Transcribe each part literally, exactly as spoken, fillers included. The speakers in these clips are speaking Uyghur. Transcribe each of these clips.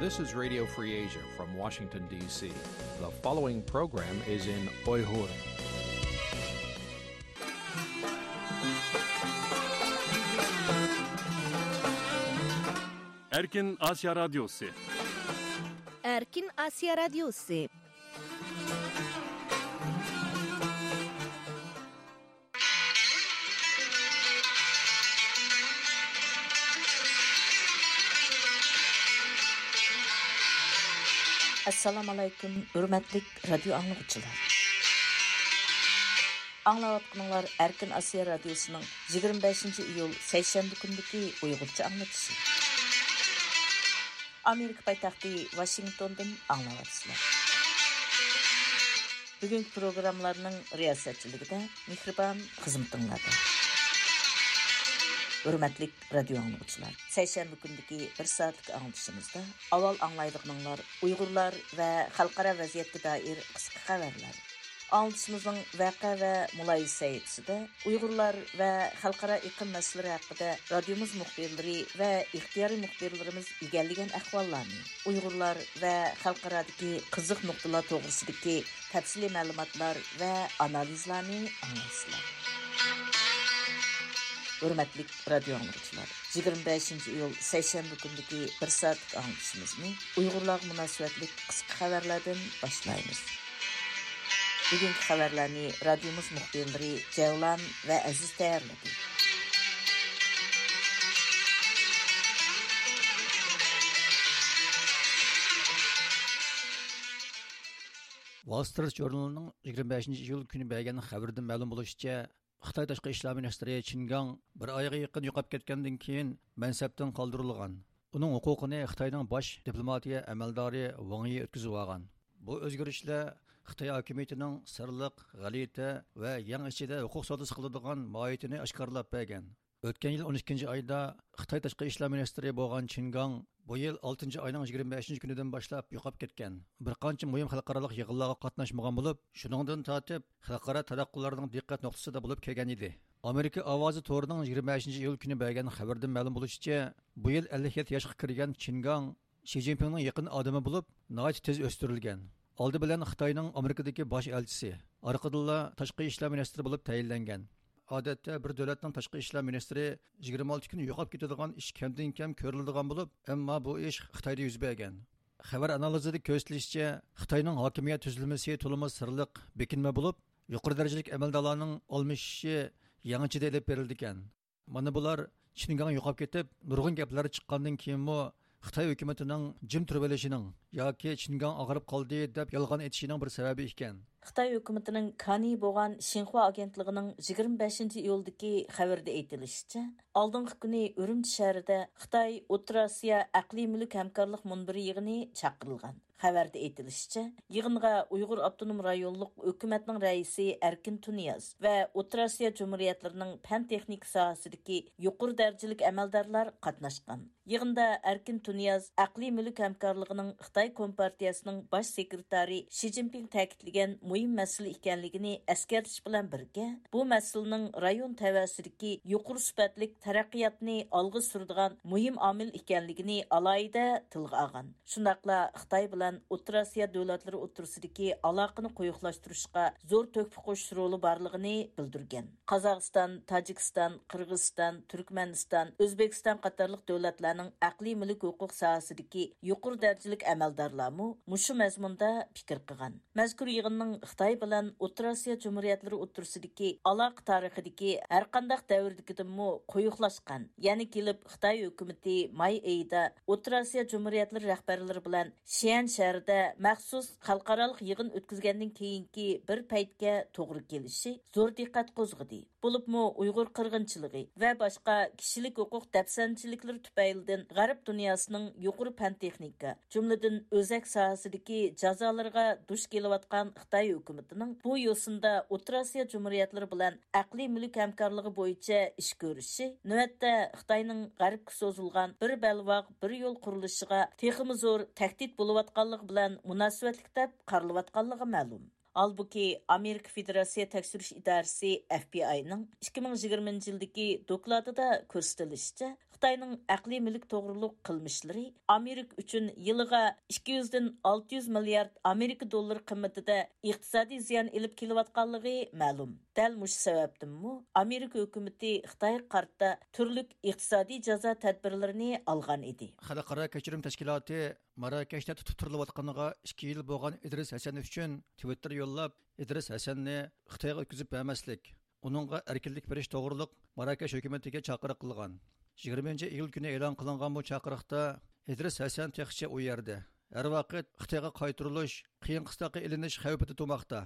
This is Radio Free Asia from Washington, D C. The following program is in Uyghur. Erkin Asya Radyosu. Erkin Asya Radyosu. ئەسسالامۇئەلەيكۇم، ھۆرمەتلىك رادىيو ئاڭلىغۇچىلار. ئاڭلاۋاتقىنىڭلار ئەركىن ئاسىيا رادىيوسىنىڭ يىگىرمە بەشىنچى ئىيۇل سەيشەنبە كۈنىدىكى ئۇيغۇرچە ئاڭلىتىشى. ئامېرىكا پايتەختى ۋاشىنگتوندىن ئاڭلاۋاتىسىلەر. بۈگۈنكى پروگراممىلارنىڭ رىياسەتچىلىكىدە مېھرىبان خىزمىتىڭلاردا. ھۆرمەتلىك رادىيو ئاڭلىغۇچىلار، سەيشەنبە كۈنىدىكى بىر سائەتلىك ئاڭلىتىشىمىزدا ئاۋۋال ئاڭلايدىغىنىڭلار ئۇيغۇرلار ۋە خەلقئارا ۋەزىيەتكە دائىر قىسقا خەۋەرلەر. ئاڭلىتىشىمىزنىڭ ۋەقە ۋە مۇلاھىزە سەھىپىسىدە ئۇيغۇرلار ۋە خەلقئارا ئېقىم مەسىلىلىرى ھەققىدە رادىيومىز مۇخبىرلىرى ۋە ئىختىيارىي مۇخبىرلىرىمىز ئىگىلىگەن ئەھۋاللارنى، ئۇيغۇرلار ۋە خەلقئارادىكى قىزىق نۇقتىلار توغرىسىدىكى تەپسىلىي مەلۇماتلار ۋە ئانالىزلارنى ئاڭلايسىلەر. ھۆرمەتلىك رادىيو ئاڭلىغۇچىلار، يىگىرمە بەشىنچى ئىيۇل سەيشەنبە كۈنىدىكى بىر سائەتلىك ئاڭلىتىشىمىزنى ئۇيغۇرلارغا مۇناسىۋەتلىك قىسقا خەۋەرلەردىن باشلايمىز. بۈگۈنكى خەۋەرلەرنى رادىيومىز مۇخبىرلىرى جەۋلان ۋە ئەزىز تەييارلىدى. ۋال سترىت ژۇرنىلىنىڭ يىگىرمە بەشىنچى ئىيۇل كۈنى بەرگەن خەۋىرىدىن مەلۇم بولۇشىچە، خىتاي تاشقى ئىشلار مىنىستىرى چىن گاڭ بىر ئايغا يېقىن يوقاپ كەتكەندىن كېيىن مەنسەپتىن قالدۇرۇلغان. ئۇنىڭ ھوقۇقىنى خىتاينىڭ باش دىپلوماتىيە ئەمەلدارى ۋاڭ يى ئۆتكۈزۈۋالغان. بۇ ئۆزگىرىشلەر خىتاي ھاكىمىيىتىنىڭ سىرلىق، غەلىتە ۋە يەڭ ئىچىدە ھوقۇق سودىسى قىلىدىغان ماھىيىتىنى ئاشكارىلاپ بەرگەن. ئۆتكەن يىل ئون ئىككىنچى ئايدا خىتاي تاشقى ئىشلار مىنىستىرى بولغان چىن گاڭ بۇ يىل ئالتىنچى ئاينىڭ يىگىرمە بەشىنچى كۈنىدىن باشلاپ يوقاپ كەتكەن. بىر قانچە مۇھىم خەلقئارالىق يىغىنلارغا قاتناشمىغان بولۇپ، شۇنىڭدىن تارتىپ خەلقئارا تاراتقۇلارنىڭ دىققەت نۇقتىسىدا بولۇپ كەلگەن ئىدى. ئامېرىكا ئاۋازى تورىنىڭ يىگىرمە بەشىنچى ئىيۇل كۈنى بەرگەن خەۋىرىدىن مەلۇم بولۇشىچە، بۇ يىل ئەللىك يەتتە ياشقا كىرگەن چىن گاڭ شى جىنپىڭنىڭ يېقىن ئادىمى بولۇپ، ناھايىتى تېز ئۆستۈرۈلگەن. ئالدى بىلەن خىتاينىڭ ئامېرىكىدىكى باش ئەلچىسى، ئارقىدىنلا تاشقى ئىشلار مىنىستىرى بولۇپ تەيىنلەنگەن. ئادەتتە بىر دۆلەتنىڭ تاشقى ئىشلار مىنىستىرى يىگىرمە ئالتە كۈن يوقاپ كېتىدىغان ئىش كەمدىن كەم كۆرۈلىدىغان بولۇپ، ئەمما بۇ ئىش خىتايدا يۈز بەرگەن. خەۋەر ئانالىزىدا كۆرسىتىلىشىچە، خىتاينىڭ ھاكىمىيەت تۈزۈلمىسى تولىمۇ سىرلىق، بېكىنمە بولۇپ، يۇقىرى دەرىجىلىك ئەمەلدارلارنىڭ ئالمىشىشى يېڭىچىدە ئېلىپ بېرىلىدىكەن. مانا بۇلار چىن گاڭ يوقاپ كېتىپ، نۇرغۇن گەپلەر چىققاندىن كېيىنمۇ خىتاي ھۆكۈمىتىنىڭ جىم تۇرۇۋېلىشىنىڭ ياكى چىن گاڭ ئاغرىپ قالدى دەپ يالغان ئېيتىشىنىڭ بىر سەۋەبى ئىكەن. خىتاي ھۆكۈمىتىنىڭ كانى بولغان شىنخۇا ئاگېنتلىقىنىڭ يىگىرمە بەشىنچى ئىيۇلدىكى خەۋىرىدە ئېيتىلىشىچە، ئالدىنقى كۈنى ئۈرۈمچى شەھىرىدە خىتاي ئوتتۇرا ئاسىيا ئەقلىي مۈلۈك ھەمكارلىق مۇنبىرى يىغىنى چاقىرىلغان. خەۋەردە ئېيتىلىشىچە، يىغىنغا ئۇيغۇر ئاپتونوم رايونلۇق ھۆكۈمەتنىڭ رەئىسى ئەركىن تۇنىياز ۋە ئوتتۇرا ئاسىيا جۇمھۇرىيەتلىرىنىڭ پەن تېخنىكا ساھەسىدىكى يۇقىرى دەرىجىلىك ئەمەلدارلار قاتناشقان. يىغىندا ئەركىن تۇنىياز ئەقلىي مۈلۈك ھەمكارلىقىنىڭ خىتاي كومپارتىيەسىنىڭ باش سېكرېتارى شى جىنپىڭ تەكىتلىگەن مۇھىم مەسىلە ئىكەنلىكىنى ئەسكەرتىش بىلەن بىرگە، بۇ مەسىلىنىڭ رايون تەۋەسىدىكى يۇقىرى سۈپەتلىك تەرەققىياتنى ئالغا سۈرىدىغان مۇھىم ئامىل ئىكەنلىكىنى ئالاھىدە تىلغا ئالغان. شۇنداقلا خىتاي بىلەن ئوتتۇرا ئاسىيا دۆلەتلىرى ئوتتۇرىسىدىكى ئالاقىنى قويۇقلاشتۇرۇشقا زور تۆھپە قوشۇش رولى بارلىقىنى بىلدۈرگەن. قازاقىستان، تاجىكىستان، قىرغىزىستان، تۈركمەنىستان، ئۆزبېكىستان قاتارلىق دۆلەتلەرنىڭ ئەقلىي مۈلۈك ھوقۇق ساھەسىدىكى يۇقىرى دەرىجىلىك ئەمەلدارلارمۇ مۇشۇ مەزمۇندا پىكىر قىلغان. مەزكۇر يىغىننىڭ خىتاي بىلەن ئوتتۇرا ئاسىيا جۇمھۇرىيەتلىرى ئوتتۇرىسىدىكى ئالاقە تارىخىدىكى ھەرقانداق دەۋردىكىدىنمۇ قويۇقلاشقان، يەنە كېلىپ خىتاي ھۆكۈمىتى ماي ئېيىدا ئوتتۇرا ئاسىيا جۇمھۇرىيەتلىرى رەھبەرلىرى بىلەن شيەن شەھىرىدە مەخسۇس خەلقئارالىق يىغىن ئۆتكۈزگەندىن كېيىنكى بىر پەيتكە توغرا كېلىشى زور دىققەت قوزغىدى. بولۇپمۇ ئۇيغۇر قىرغىنچىلىقى ۋە باشقا كىشىلىك ھوقۇق دەپسەندىچىلىكلىرى تۈپەيلىدىن غەرب دۇنياسىنىڭ يۇقىرى پەن تېخنىكا، جۈملىدىن ئۆزەك ساھەسىدىكى جازالىرىغا دۇچ كېلىۋاتقان خىتاي ھۆكۈمىتىنىڭ بۇ يوسۇندا ئوتتۇرا ئاسىيا جۇمھۇرىيەتلىرى بىلەن ئەقلىي مۈلۈك ھەمكارلىقى بويىچە ئىش كۆرۈشى، نۆۋەتتە خىتاينىڭ غەربكە سوزۇلغان بىر بەلباغ، بىر يول قۇرۇلۇشىغا تېخىمۇ زور تەھدىت بولۇۋاتقانلىقى بىلەن مۇناسىۋەتلىك دەپ قارىلىۋاتقانلىقى مەلۇم. ھالبۇكى، ئامېرىكا فېدېراتسىيە تەكشۈرۈش ئىدارىسى، ئەف بى ئاينىڭ ئىككى مىڭ يىگىرمىنچى يىلدىكى دوكلاتىدا كۆرسىتىلىشىچە، خىتاينىڭ ئەقلىي مۈلۈك توغرۇلۇق قىلمىشلىرى ئامېرىكا ئۈچۈن يىلىغا ئىككى يۈزدىن ئالتە يۈز مىليارد ئامېرىكا دوللىرى قىممىتىدە ئىقتىسادىي زىيان ئېلىپ كېلىۋاتقانلىقى مەلۇم. دەل مۇشۇ سەۋەبتىنمۇ ئامېرىكا ھۆكۈمىتى خىتايغا قارىتا تۈرلۈك ئىقتىسادىي جازا تەدبىرلىرىنى ئالغان ئىدى. خەلقئارا كەچۈرۈم تەشكىلاتى ماراكەشتە تۇتۇپ تۇرۇلۇۋاتقىنىغا ئىككى يىل بولغان ئىدرىس ھەسەن ئۈچۈن تىۋىتتېر يوللاپ، ئىدرىس ھەسەننى خىتايغا ئۆتكۈزۈپ بەرمەسلىك، ئۇنىڭغا ئەركىنلىك بېرىش توغرۇلۇق ماراكەش ھۆكۈمىتىگە چاقىرىق قىلغان. يىگىرمىنچى ئىيۇل كۈنى ئېلان قىلىنغان بۇ چاقىرىقتا ئىدرىس ھەسەن تېخىچە ئۇ يەردە، ھەر ۋاقىت خىتايغا قايتۇرۇلۇش، قىيىن قىستاققا ئېلىنىش خەۋپىدە تۇرماقتا.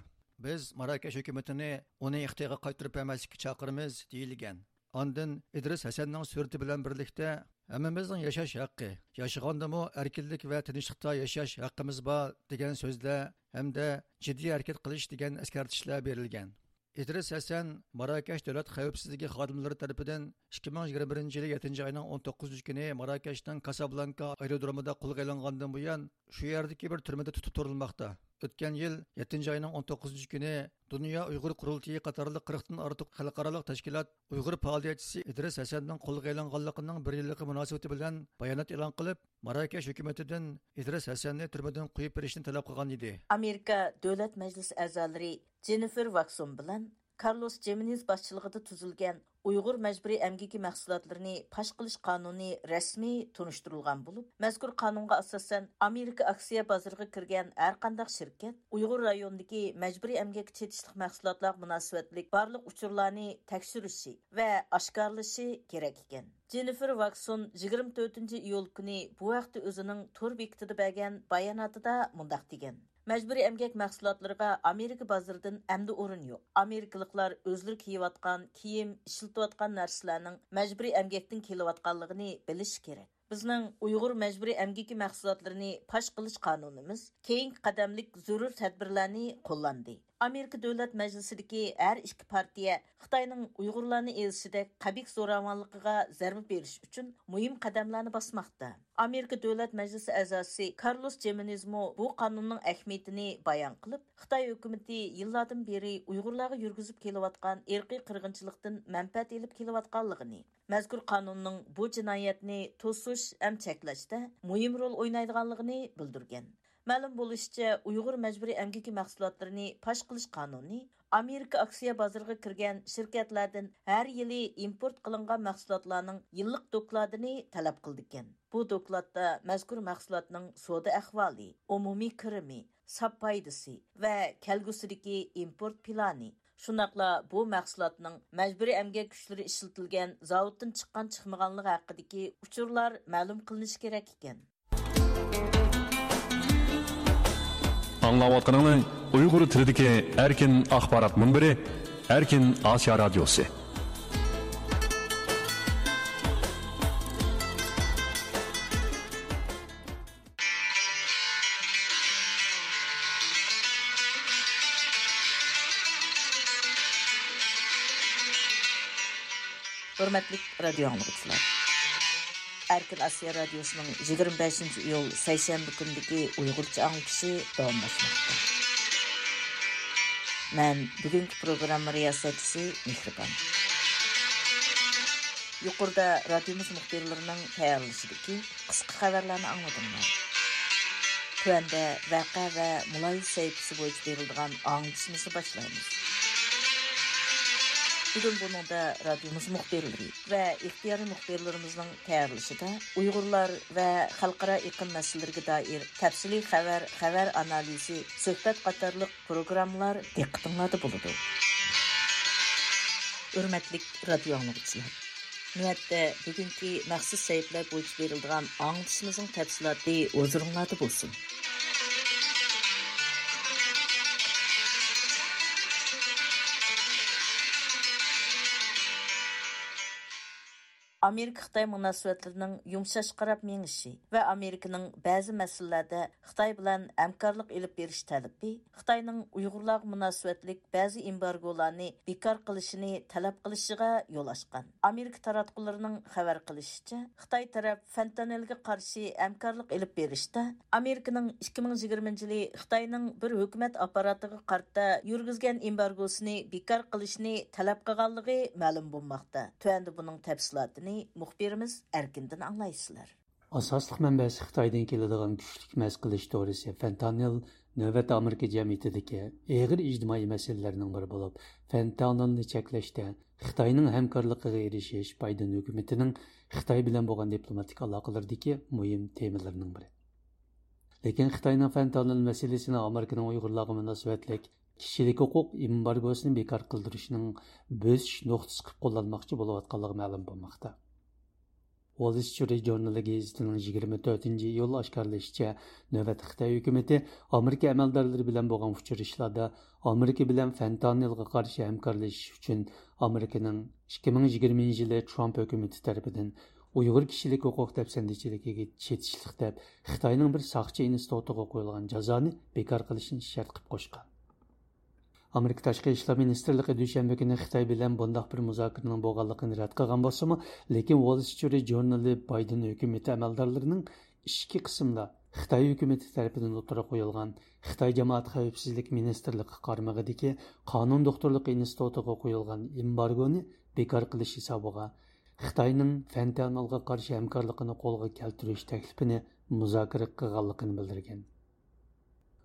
بىز ماراكەش ھۆكۈمىتىنى ئۇنى خىتايغا قايتۇرۇپ بەرمەسلىككە چاقىرىمىز، دېيىلگەن. ئاندىن ئىدرىس ھەسەننىڭ سۈرىتى بىلەن بىرلىكتە، «ھەممىمىزنىڭ ياشاش ھەققى، ياشىغاندىمۇ ئەركىنلىك ۋە تىنچلىقتا ياشاش ھەققىمىز بار» دېگەن سۆزلەر ھەمدە «جىددىي ھەرىكەت قىلىش» دېگەن ئەسكەرتىشلەر بېرىلگەن. ئىدرىس ھەسەن ماراكەش دۆلەت خەۋپسىزلىكى خادىملىرى تەرىپىدىن ئىككى مىڭ يىگىرمە بىرىنچى يىلى يەتتىنچى ئاينىڭ ئون توققۇزىنچى كۈنى ماراكەشنىڭ كاسابلانكا ئايرودرومىدا قولغا ئېلىنغاندىن بۇيان، شۇ يەردىكى بىر تۈرمىدە تۇتۇپ تۇرۇلماقتا. ئۆتكەن يىل يەتتىنچى ئاينىڭ ئون توققۇزىنچى كۈنى دۇنيا ئۇيغۇر قۇرۇلتىيى قاتارلىق قىرىقتىن ئارتۇق خەلقئارالىق تەشكىلات ئۇيغۇر پائالىيەتچىسى ئىدرىس ھەسەننىڭ قولغا ئېلىنغانلىقىنىڭ بىر يىللىقى مۇناسىۋىتى بىلەن بايانات ئېلان قىلىپ، ماراكەش ھۆكۈمىتىدىن ئىدرىس ھەسەننى تۈرمىدىن قويۇپ بېرىشنى تەلەپ قىلغان ئىدى. ئامېرىكا دۆلەت مەجلىسى ئەزالىرى جېننىفېر ۋاكسون بىلەن كارلوس جېمېنېز باشچىلىقىدا تۈزۈلگەن ئۇيغۇر مەجبۇرىي ئەمگىكى مەھسۇلاتلىرىنى پاش قىلىش قانۇنى رەسمىي تونۇشتۇرۇلغان بولۇپ، مەزكۇر قانۇنغا ئاساسەن، ئامېرىكا ئاكسىيە بازىرىغا كىرگەن ھەرقانداق شىركەت ئۇيغۇر رايونىدىكى مەجبۇرىي ئەمگەككە چېتىشلىق مەھسۇلاتلارغا مۇناسىۋەتلىك بارلىق ئۇچۇرلارنى تەكشۈرۈشى ۋە ئاشكارىلىشى كېرەك ئىكەن. جېننىفېر ۋاكسون يىگىرمە تۆتىنچى ئىيۇل كۈنى بۇ ھەقتە ئۆزىنىڭ تور بېكىتىدا بەرگەن باياناتىدا مۇنداق دېگەن: مەجبۇرىي ئەمگەك مەھسۇلاتلىرىغا ئامېرىكا بازىرىدىن ئەمدى ئورۇن يوق. ئامېرىكىلىقلار ئۆزلىرى كىيىۋاتقان كىيىم، ئىشلىتىۋاتقان نەرسىلەرنىڭ مەجبۇرىي ئەمگەكتىن كېلىۋاتقانلىقىنى بىلىشى كېرەك. بىزنىڭ ئۇيغۇر مەجبۇرىي ئەمگىكى مەھسۇلاتلىرىنى پاش قىلىش قانۇنىمىز كېيىنكى قەدەملىك زۆرۈر تەدبىرلەرنى قوللاندى. ئامېرىكا دۆلەت مەجلىسىدىكى ھەر ئىككى پارتىيە خىتاينىڭ ئۇيغۇرلارنى ئېزىشىدەك قەبىھ زوراۋانلىقىغا زەربە بېرىش ئۈچۈن مۇھىم قەدەملەرنى باسماقتا. ئامېرىكا دۆلەت مەجلىسى ئەزاسى كارلوس جېمېنېزمۇ بۇ قانۇننىڭ ئەھمىيىتىنى بايان قىلىپ، خىتاي ھۆكۈمىتى يىللاردىن بېرى ئۇيغۇرلارغا يۈرگۈزۈپ كېلىۋاتقان ئىرقىي قىرغىنچىلىقتىن مەنپەئەت ئېلىپ كېلىۋاتقانلىقىنى، مەزكۇر قانۇننىڭ بۇ جىنايەتنى توسۇش ھەم چەكلەشتە مۇھىم رول ئوينايدىغانلىقىنى بىلدۈرگەن. مەلۇم بولۇشىچە، ئۇيغۇر مەجبۇرىي ئەمگىكى مەھسۇلاتلىرىنى پاش قىلىش قانۇنى ئامېرىكا ئاكسىيە بازىرىغا كىرگەن شىركەتلەردىن ھەر يىلى ئىمپورت قىلىنغان مەھسۇلاتلارنىڭ يىللىق دوكلاتىنى تەلەپ قىلىدىكەن. بۇ دوكلاتتا مەزكۇر مەھسۇلاتنىڭ سودا ئەھۋالى، ئومۇمىي كىرىمى، ساپ پايدىسى ۋە كەلگۈسىدىكى ئىمپورت پىلانى، شۇنداقلا بۇ مەھسۇلاتنىڭ مەجبۇرىي ئەمگەك كۈچلىرى ئىشلىتىلگەن زاۋۇتتىن چىققان چىقمىغانلىقى ھەققىدىكى ئۇچۇرلار مەلۇم قىلىنىشى كېرەك ئىكەن. ئاڭلاۋاتقىنىڭلار ئۇيغۇر تىلىدىكى ئەركىن ئاخبارات مۇنبىرى، ئەركىن ئاسىيا رادىيوسى. ھۆرمەتلىك رادىيو ئاڭلىغۇچىلار! ئەركىن ئاسىيا رادىيوسىنىڭ يىگىرمە بەشىنچى ئىيۇل سەيشەنبە كۈنىدىكى ئۇيغۇرچە ئاڭلىتىشى داۋاملاشماقتا. مەن بۈگۈنكى پروگرامما رىياسەتچىسى مېھرىبان. يۇقىرىدا رادىيومىز مۇخبىرلىرىنىڭ تەييارلىشىدىكى قىسقا خەۋەرلەرنى ئاڭلىدىڭلار. تۆۋەندە ۋەقە ۋە مۇلاھىزە سەھىپىسى بويىچە بېرىلىدىغان ئاڭلىتىشىمىزنى باشلايمىز. بۈگۈن بۇنىڭدا رادىيومىز مۇخبىرلىرى ۋە ئىختىيارىي مۇخبىرلىرىمىزنىڭ تەييارلىشىدا ئۇيغۇرلار ۋە خەلقئارا ئېقىم مەسىلىلىرىگە دائىر تەپسىلىي خەۋەر، خەۋەر ئانالىزى، سۆھبەت قاتارلىق پروگراممىلار دىققىتىڭلاردا بولىدۇ. ھۆرمەتلىك رادىيو ئاڭلىغۇچىلار! نۆۋەتتە بۈگۈنكى مەخسۇس سەھىپىلەر بويىچە بېرىلىدىغان ئاڭلىتىشىمىزنىڭ تەپسىلاتى ھۇزۇرۇڭلاردا بولسۇن. ئامېرىكا-خىتاي مۇناسىۋەتلىرىنىڭ يۇمشاشقا قاراپ مېڭىشى ۋە ئامېرىكىنىڭ بەزى مەسىلىلەردە خىتاي بىلەن ھەمكارلىق ئېلىپ بېرىش تەلىپى خىتاينىڭ ئۇيغۇرلارغا مۇناسىۋەتلىك بەزى ئېمبارگولارنى بىكار قىلىشىنى تەلەپ قىلىشىغا يول ئاچقان. ئامېرىكا تاراتقۇلىرىنىڭ خەۋەر قىلىشىچە، خىتاي تەرەپ فېنتانىلگە قارشى ھەمكارلىق ئېلىپ بېرىشتا ئامېرىكىنىڭ ئىككى مىڭ يىگىرمىنچى يىلى خىتاينىڭ بىر ھۆكۈمەت ئاپپاراتىغا قارىتا يۈرگۈزگەن ئېمبارگوسىنى بىكار قىلىشنى تەلەپ قىلغانلىقى مەلۇم بولماقتا. تۆۋەندە بۇنىڭ تەپسىلاتىنى مۇخبىرىمىز ئەركىندىن ئاڭلايسىلەر. ئاساسلىق مەنبەسى خىتايدىن كېلىدىغان كۈچلۈك مەس قىلىش دورىسى فېنتانىل نۆۋەتتە ئامېرىكا جەمئىيىتىدىكى ئېغىر ئىجتىمائىي مەسىلىلەرنىڭ بىرى بولۇپ، فېنتانىلنى چەكلەشتە خىتاينىڭ ھەمكارلىقىغا ئېرىشىش بايدېن ھۆكۈمىتىنىڭ خىتاي بىلەن بولغان دىپلوماتىك ئالاقىلىرىدىكى مۇھىم تېمىلىرىنىڭ بىرى. لېكىن خىتاينىڭ فېنتانىل مەسىلىسىنى ئامېرىكىنىڭ ئۇيغۇرلارغا مۇناسىۋەتلىك كىشىلىك ھوقۇق ئېمبارگوسىنى بىكار قىلدۇرۇشنىڭ بۆسۈش نۇقتىسى قىلىپ قوللانماقچى بولۇۋاتقانلىقى مەلۇم بولماقتا. ۋول سترىت ژۇرنىلى گېزىتىنىڭ يىگىرمە تۆتىنچى ئىيۇل ئاشكارىلىشىچە، نۆۋەتتە خىتاي ھۆكۈمىتى ئامېرىكا ئەمەلدارلىرى بىلەن بولغان ئۇچرىشىشلاردا ئامېرىكا بىلەن فېنتانىلغا قارشى ھەمكارلىشىش ئۈچۈن ئامېرىكىنىڭ ئىككى مىڭ يىگىرمىنچى يىلى ترامپ ھۆكۈمىتى تەرىپىدىن ئۇيغۇر كىشىلىك ھوقۇق دەپسەندىچىلىكىگە چېتىشلىق دەپ خىتاينىڭ بىر ساقچى ئىنستىتۇتىغا قويۇلغان جازانى بىكار قىلىشنى شەرت قىلىپ قوشقان. ئامېرىكا تاشقى ئىشلار مىنىستىرلىقى دۈشەنبە كۈنى خىتاي بىلەن بۇنداق بىر مۇزاكىرىنىڭ بولغانلىقىنى رەت قىلغان بولسىمۇ، لېكىن ۋول سترىت ژۇرنىلى بايدېن ھۆكۈمىتى ئەمەلدارلىرىنىڭ ئىچكى قىسىمدا خىتاي ھۆكۈمىتى تەرىپىدىن ئوتتۇرىغا قويۇلغان خىتاي جامائەت خەۋپسىزلىك مىنىستىرلىقى قارمىقىدىكى قانۇن دوختۇرلۇقى ئىنستىتۇتىغا قويۇلغان ئېمبارگونى بىكار قىلىش ھېسابىغا خىتاينىڭ فېنتانىلغا قارشى ھەمكارلىقىنى قولغا كەلتۈرۈش تەكلىپىنى مۇزاكىرە قىلغانلىقىنى بىلدۈرگەن.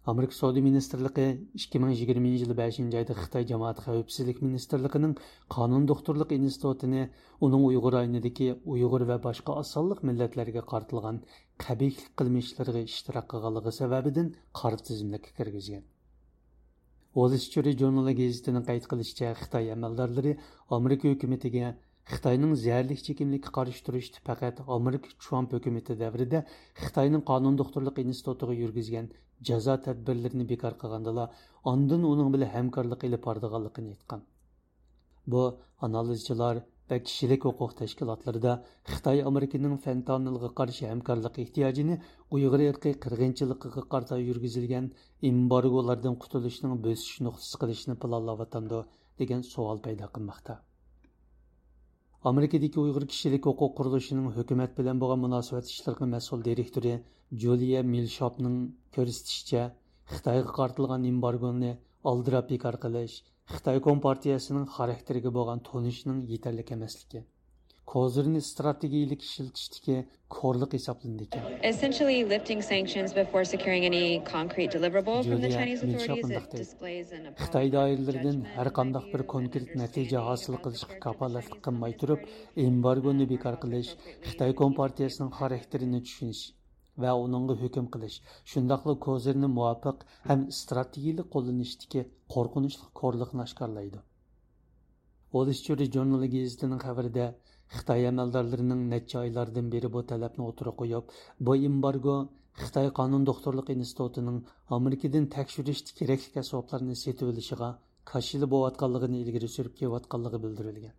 ئامېرىكا سودا مىنىستىرلىقى ئىككى مىڭ يىگىرمىنچى يىلى بەشىنچى ئايدا خىتاي جامائەت خەۋپسىزلىك مىنىستىرلىقىنىڭ قانۇن دوختۇرلۇق ئىنستىتۇتىنى ئۇنىڭ ئۇيغۇر رايونىدىكى ئۇيغۇر ۋە باشقا ئاز سانلىق مىللەتلەرگە قارىتىلغان قەبىھلىك قىلمىشلىرىغا ئىشتىراك قىلغانلىقى سەۋەبىدىن قارا تىزىملىككە كىرگۈزگەن. ۋول سترىت ژۇرنىلى گېزىتىنىڭ قەيت قىلىشىچە، خىتاي ئەمەلدارلىرى ئامېرىكا ھۆكۈمىتىگە خىتاينىڭ زەھەرلىك چېكىملىككە قارشى تۇرۇشتا پەقەت ئامېرىكا ترامپ ھۆكۈمىتى دەۋرىدە خىتاينىڭ قانۇن دوختۇرلۇق ئىنستىتۇتىغا يۈرگۈزگەن جازا تەدبىرلىرىنى بىكار قىلغاندىلا، ئاندىن ئۇنىڭ بىلەن ھەمكارلىق ئېلىپ بارىدىغانلىقىنى ئېيتقان. بۇ ئانالىزچىلار ۋە كىشىلىك ھوقۇق تەشكىلاتلىرىدا خىتاي ئامېرىكىنىڭ فېنتانىلغا قارشى ھەمكارلىق ئېھتىياجىنى ئۇيغۇر ئىرقىي قىرغىنچىلىقىغا قارىتا يۈرگۈزۈلگەن ئېمبارگولاردىن قۇتۇلۇشنىڭ بۆسۈش نۇقتىسى قىلىشنى پىلانلاۋاتامدۇ، دېگەن سوئال پەيدا قىلماقتا. ئامېرىكىدىكى ئۇيغۇر كىشىلىك ھوقۇق قۇرۇلۇشىنىڭ ھۆكۈمەت بىلەن بولغان مۇناسىۋەت ئىشلىرىغا مەسئۇل دىرېكتورى جۇلىيە مىلشاپنىڭ كۆرسىتىشىچە، خىتايغا قارىتىلغان ئېمبارگونى ئالدىراپ بىكار قىلىش خىتاي كومپارتىيەسىنىڭ خاراكتېرىگە بولغان تونۇشنىڭ يېتەرلىك ئەمەسلىكى، كوزىرنى ئىستراتېگىيىلىك ئىشلىتىشتىكى كورلۇق ھېسابلىنىدىكەن. Essentially, lifting sanctions before securing any concrete deliverable from the جۇلىيا Chinese مىلشاپ authorities, it مۇنداق دەيدۇ. Displays an خىتاي دائىرىلىرىدىن ھەر قانداق بىر كونكرېت نەتىجە ھاسىل قىلىشقا كاپالەتلىك قىلماي تۇرۇپ، ئېمبارگونى بىكار قىلىش خىتاي كومپارتىيەسىنىڭ خاراكتېرىنى چۈشىنىش ۋە ئۇنىڭغا ھۆكۈم قىلىش، شۇنداقلا كوزىرنى مۇۋاپىق ھەم ئىستراتېگىيىلىك قوللىنىشتىكى قورقۇنچلۇق كورلۇقنى ئاشكارىلايدۇ. ۋول سترىت ژۇرنىلى گېزىتىنىڭ خەۋىرىدە، خىتاي ئەمەلدارلىرىنىڭ نەچچە ئايلاردىن بېرى بۇ تەلەپنى ئوتتۇرىغا قويۇپ، بۇ ئېمبارگو خىتاي قانۇن دوختۇرلۇق ئىنستىتۇتىنىڭ ئامېرىكىدىن تەكشۈرۈشتە كېرەكلىك ئەسۋابلارنى سېتىۋېلىشىغا كاشىلا بولۇۋاتقانلىقىنى ئىلگىرى سۈرۈپ كېلىۋاتقانلىقى بىلدۈرۈلگەن.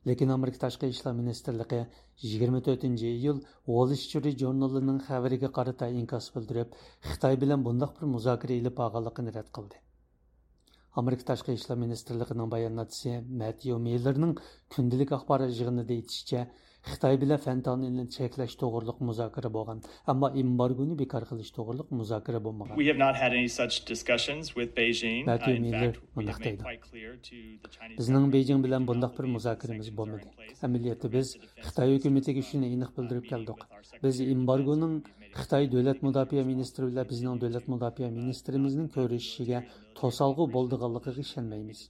لېكىن ئامېرىكا تاشقى ئىشلار مىنىستىرلىقى يىگىرمە تۆتىنچى ئىيۇل ۋول سترىت ژۇرنىلىنىڭ خەۋىرىگە قارىتا ئىنكاس بىلدۈرۈپ، خىتاي بىلەن بۇنداق بىر مۇزاكىرە ئېلىپ بارغانلىقىنى رەت قىلدى. ئامېرىكا تاشقى ئىشلار مىنىستىرلىقىنىڭ باياناتچىسى مەتيۇ مىللېرنىڭ كۈندىلىك ئاخبارات يىغىنىدا ئېيتىشىچە، خىتاي بىلەن فېنتانىلنى چەكلەش توغرۇلۇق مۇزاكىرە بولغان، ئەمما ئېمبارگونى بىكار قىلىش توغرۇلۇق مۇزاكىرە بولمىغان. We have not had any such discussions with Beijing. مەتيۇ مىللېر مۇنداق دەيدۇ. بىزنىڭ بېيجىڭ بىلەن بۇنداق بىر مۇزاكىرىمىز بولمىدى. ئەمەلىيەتتە بىز خىتاي ھۆكۈمىتىگە شۇنى ئېنىق بىلدۈرۈپ كەلدۇق. بىز ئېمبارگونىڭ خىتاي دۆلەت مۇداپىئە مىنىستىرى بىلەن بىزنىڭ دۆلەت مۇداپىئە مىنىستىرىمىزنىڭ كۆرۈشۈشىگە توسالغۇ بولىدىغانلىقىغا ئىشەنمەيمىز.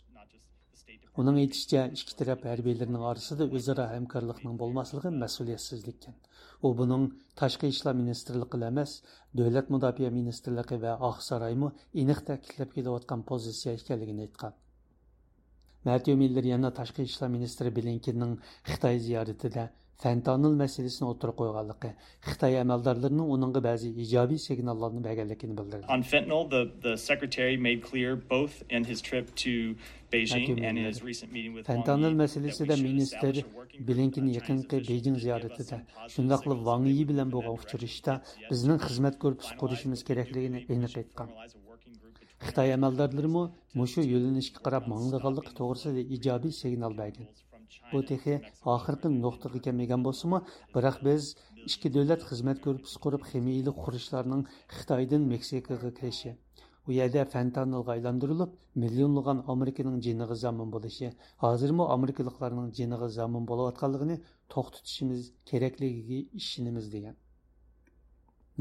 ئۇنىڭ ئېيتىشىچە، ئىككى تەرەپ ھەربىيلىرىنىڭ ئارىسىدا ئۆزئارا ھەمكارلىقنىڭ بولماسلىقى مەسئۇلىيەتسىزلىككەن. ئۇ بۇنىڭ تاشقى ئىشلار مىنىستىرلىقىلا ئەمەس، دۆلەت مۇداپىئە مىنىستىرلىقى ۋە ئاقسارايمۇ ئېنىق تەكىتلەپ كېلىۋاتقان پوزىتسىيە ئىكەنلىكىنى ئېيتقان. مەتيۇ مىللېر يەنە تاشقى ئىشلار مىنىستىرى بلىنكېننىڭ خىتاي زىيارىتىدە فېنتانىل مەسىلىسىنى ئوتتۇرىغا قويغانلىقى، خىتاي ئەمەلدارلىرىنىڭ ئۇنىڭغا بەزى ئىجابىي سىگناللارنى بەرگەنلىكىنى بىلدۈردى. On fentanyl, the, the secretary made clear both in his trip to Beijing and his recent meeting with Wang Yi that we should establish a working group on China's working drugs and drugs resistance. مەتيۇ مىللېر، فېنتانىل مەسىلىسىدە مىنىستىر بلىنكېن يېقىنقى بېيجىڭ زىيارىتىدە، شۇنداقلا ۋاڭ يى بىلەن بولغان ئۇچرىشىشتا بىزنىڭ خىزمەت گۇرۇپپىسى قۇرۇشىمىز كېرەكلىكىنى ئېنىق ئېيتقان. خىتاي ئەمەلدارلىرىمۇ مۇشۇ يۆنىلىشكە قاراپ ماڭىدىغانلىقى توغرىسىدا ئىجابىي سىگنال بەرگەن. بۇ تېخى ئاخىرقى نۇقتىغا كەلمىگەن بولسىمۇ، بىراق بىز ئىككى دۆلەت خىزمەت گۇرۇپپىسى قۇرۇپ، خىمىيىلىك خۇرۇچلارنىڭ خىتايدىن مېكسىكىغا كىرىشى، ئۇ يەردە فېنتانىلغا ئايلاندۇرۇلۇپ، مىليونلىغان ئامېرىكىنىڭ جېنىغا زامىن بولۇشى، ھازىرمۇ ئامېرىكىلىقلارنىڭ جېنىغا زامىن بولۇۋاتقانلىقىنى توختىتىشىمىز كېرەكلىكىگە ئىشىنىمىز، دېگەن.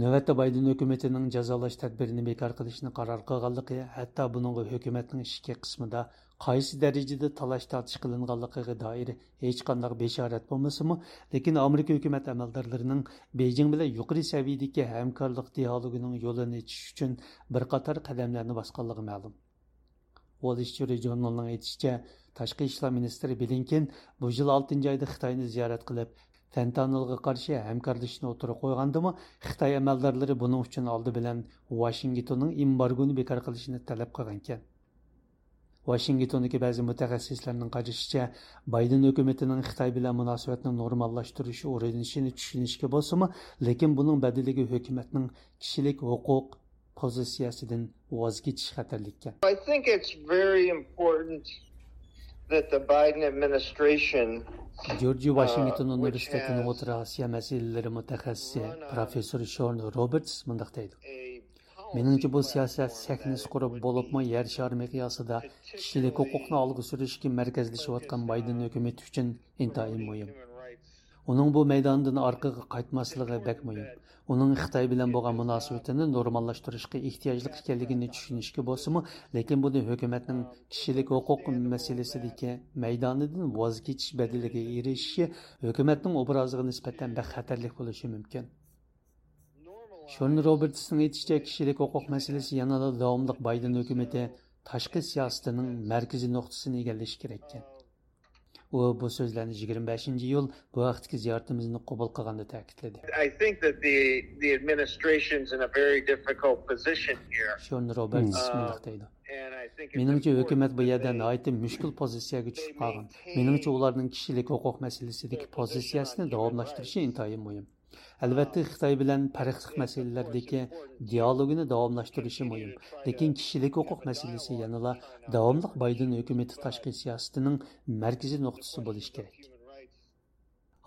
نۆۋەتتە بايدېن ھۆكۈمىتىنىڭ جازالاش تەدبىرىنى بىكار قىلىشنى قارار قىلغانلىقى، ھەتتا بۇنىڭغا ھۆكۈمەتنىڭ ئىچكى قىسمىدا قايسى دەرىجىدە تالاش-تارتىش قىلىنغانلىقىغا دائىر ھېچقانداق بېشارەت بولمىسىمۇ، لېكىن ئامېرىكا ھۆكۈمەت ئەمەلدارلىرىنىڭ بېيجىڭ بىلەن يۇقىرى سەۋىيەدىكى ھەمكارلىق دىئالوگىنىڭ يولىنى ئېچىش ئۈچۈن بىر قاتار قەدەملەرنى باسقانلىقى مەلۇم. ۋول سترىت ژۇرنىلىنىڭ ئېيتىشىچە، تاشقى ئىشلار مىنىستىرى بلىنكېن بۇ يىل ئالتىنچى ئايدا خىتاينى زىيارەت قىلىپ، فېنتانىلغا قارشى ھەمكارلىشىشنى ئوتتۇرىغا قويغاندىمۇ، خىتاي ئەمەلدارلىرى بۇنىڭ ئۈچۈن ئالدى بىلەن ۋاشىنگتوننىڭ ئېمبارگونى بىكار قىلىشىنى تەلەپ قىلغانىكەن. ۋاشىنگتوندىكى بەزى مۇتەخەسسىسلەرنىڭ قارىشىچە، بايدېن ھۆكۈمىتىنىڭ خىتاي بىلەن مۇناسىۋەتنى نورماللاشتۇرۇش ئۇرۇنۇشىنى چۈشىنىشكە بولسىمۇ، لېكىن بۇنىڭ بەدىلىگە ھۆكۈمەتنىڭ كىشىلىك ھوقۇق پوزىتسىيەسىدىن ۋاز كېچىش خەتەرلىككەن. I think it's very important that the Biden administration, جورج ۋاشىنگتون ئۇنىۋېرسىتېتىنىڭ ئوتتۇرا ئاسىيا مەسىلىلىرى مۇتەخەسسىسى پروفېسسور شورن روبېرتس مۇنداق دەيدۇ: مېنىڭچە، بۇ سىياسەت سەھنىسى قۇرۇپ، بولۇپمۇ يەر شارى مىقياسىدا كىشىلىك ھوقۇقنى ئالغا سۈرۈشكە مەركەزلىشىۋاتقان بايدېن ھۆكۈمىتى ئۈچۈن ئىنتايىن مۇھىم. ئۇنىڭ بۇ مەيداندىن ئارقىغا قايتماسلىقى بەك مۇھىم. ئۇنىڭ خىتاي بىلەن بولغان مۇناسىۋىتىنى نورماللاشتۇرۇشقا ئېھتىياجلىق ئىكەنلىكىنى چۈشىنىشكە بولسىمۇ، لېكىن بۇنى ھۆكۈمەتنىڭ كىشىلىك ھوقۇق مەسىلىسىدىكى مەيدانىدىن ۋاز كېچىش بەدىلىگە ئېرىشىشى ھۆكۈمەتنىڭ ئوبرازىغا نىسبەتەن بەك خەتەرلىك بولۇشى مۇمكىن. شون روبېرتسنىڭ ئېيتىشىچە، كىشىلىك ھوقۇق مەسىلىسى يەنىلا داۋاملىق بايدېن ھۆكۈمىتى تاشقى سىياسىتىنىڭ مەركىزىي نۇقتىسىنى ئىگىلىشى كېرەككەن. ئۇ بۇ سۆزلەرنى يىگىرمە بەشىنچى ئىيۇل بۇ ھەقتىكى زىيارىتىمىزنى قوبۇل قىلغاندا تەكىتلىدى. I think that the, the administration's in a very difficult position here. شون روبېرتس مۇنداق دەيدۇ: مېنىڭچە، ھۆكۈمەت بۇ يەردە ناھايىتى مۈشكۈل پوزىتسىيەگە چۈشۈپ قالغان. مېنىڭچە، ئۇلارنىڭ كىشىلىك ھوقۇق مەسىلىسىدىكى پوزىتسىيەسىنى داۋاملاشتۇرۇشى ئىنتايىن مۇھىم. ئەلۋەتتە، خىتاي بىلەن پەرقلىق مەسىلىلەردىكى دىئالوگىنى داۋاملاشتۇرۇشى مۇھىم، لېكىن كىشىلىك ھوقۇق مەسىلىسى يەنىلا داۋاملىق بايدېن ھۆكۈمىتى تاشقى سىياسىتىنىڭ مەركىزىي نۇقتىسى بولۇشى كېرەك.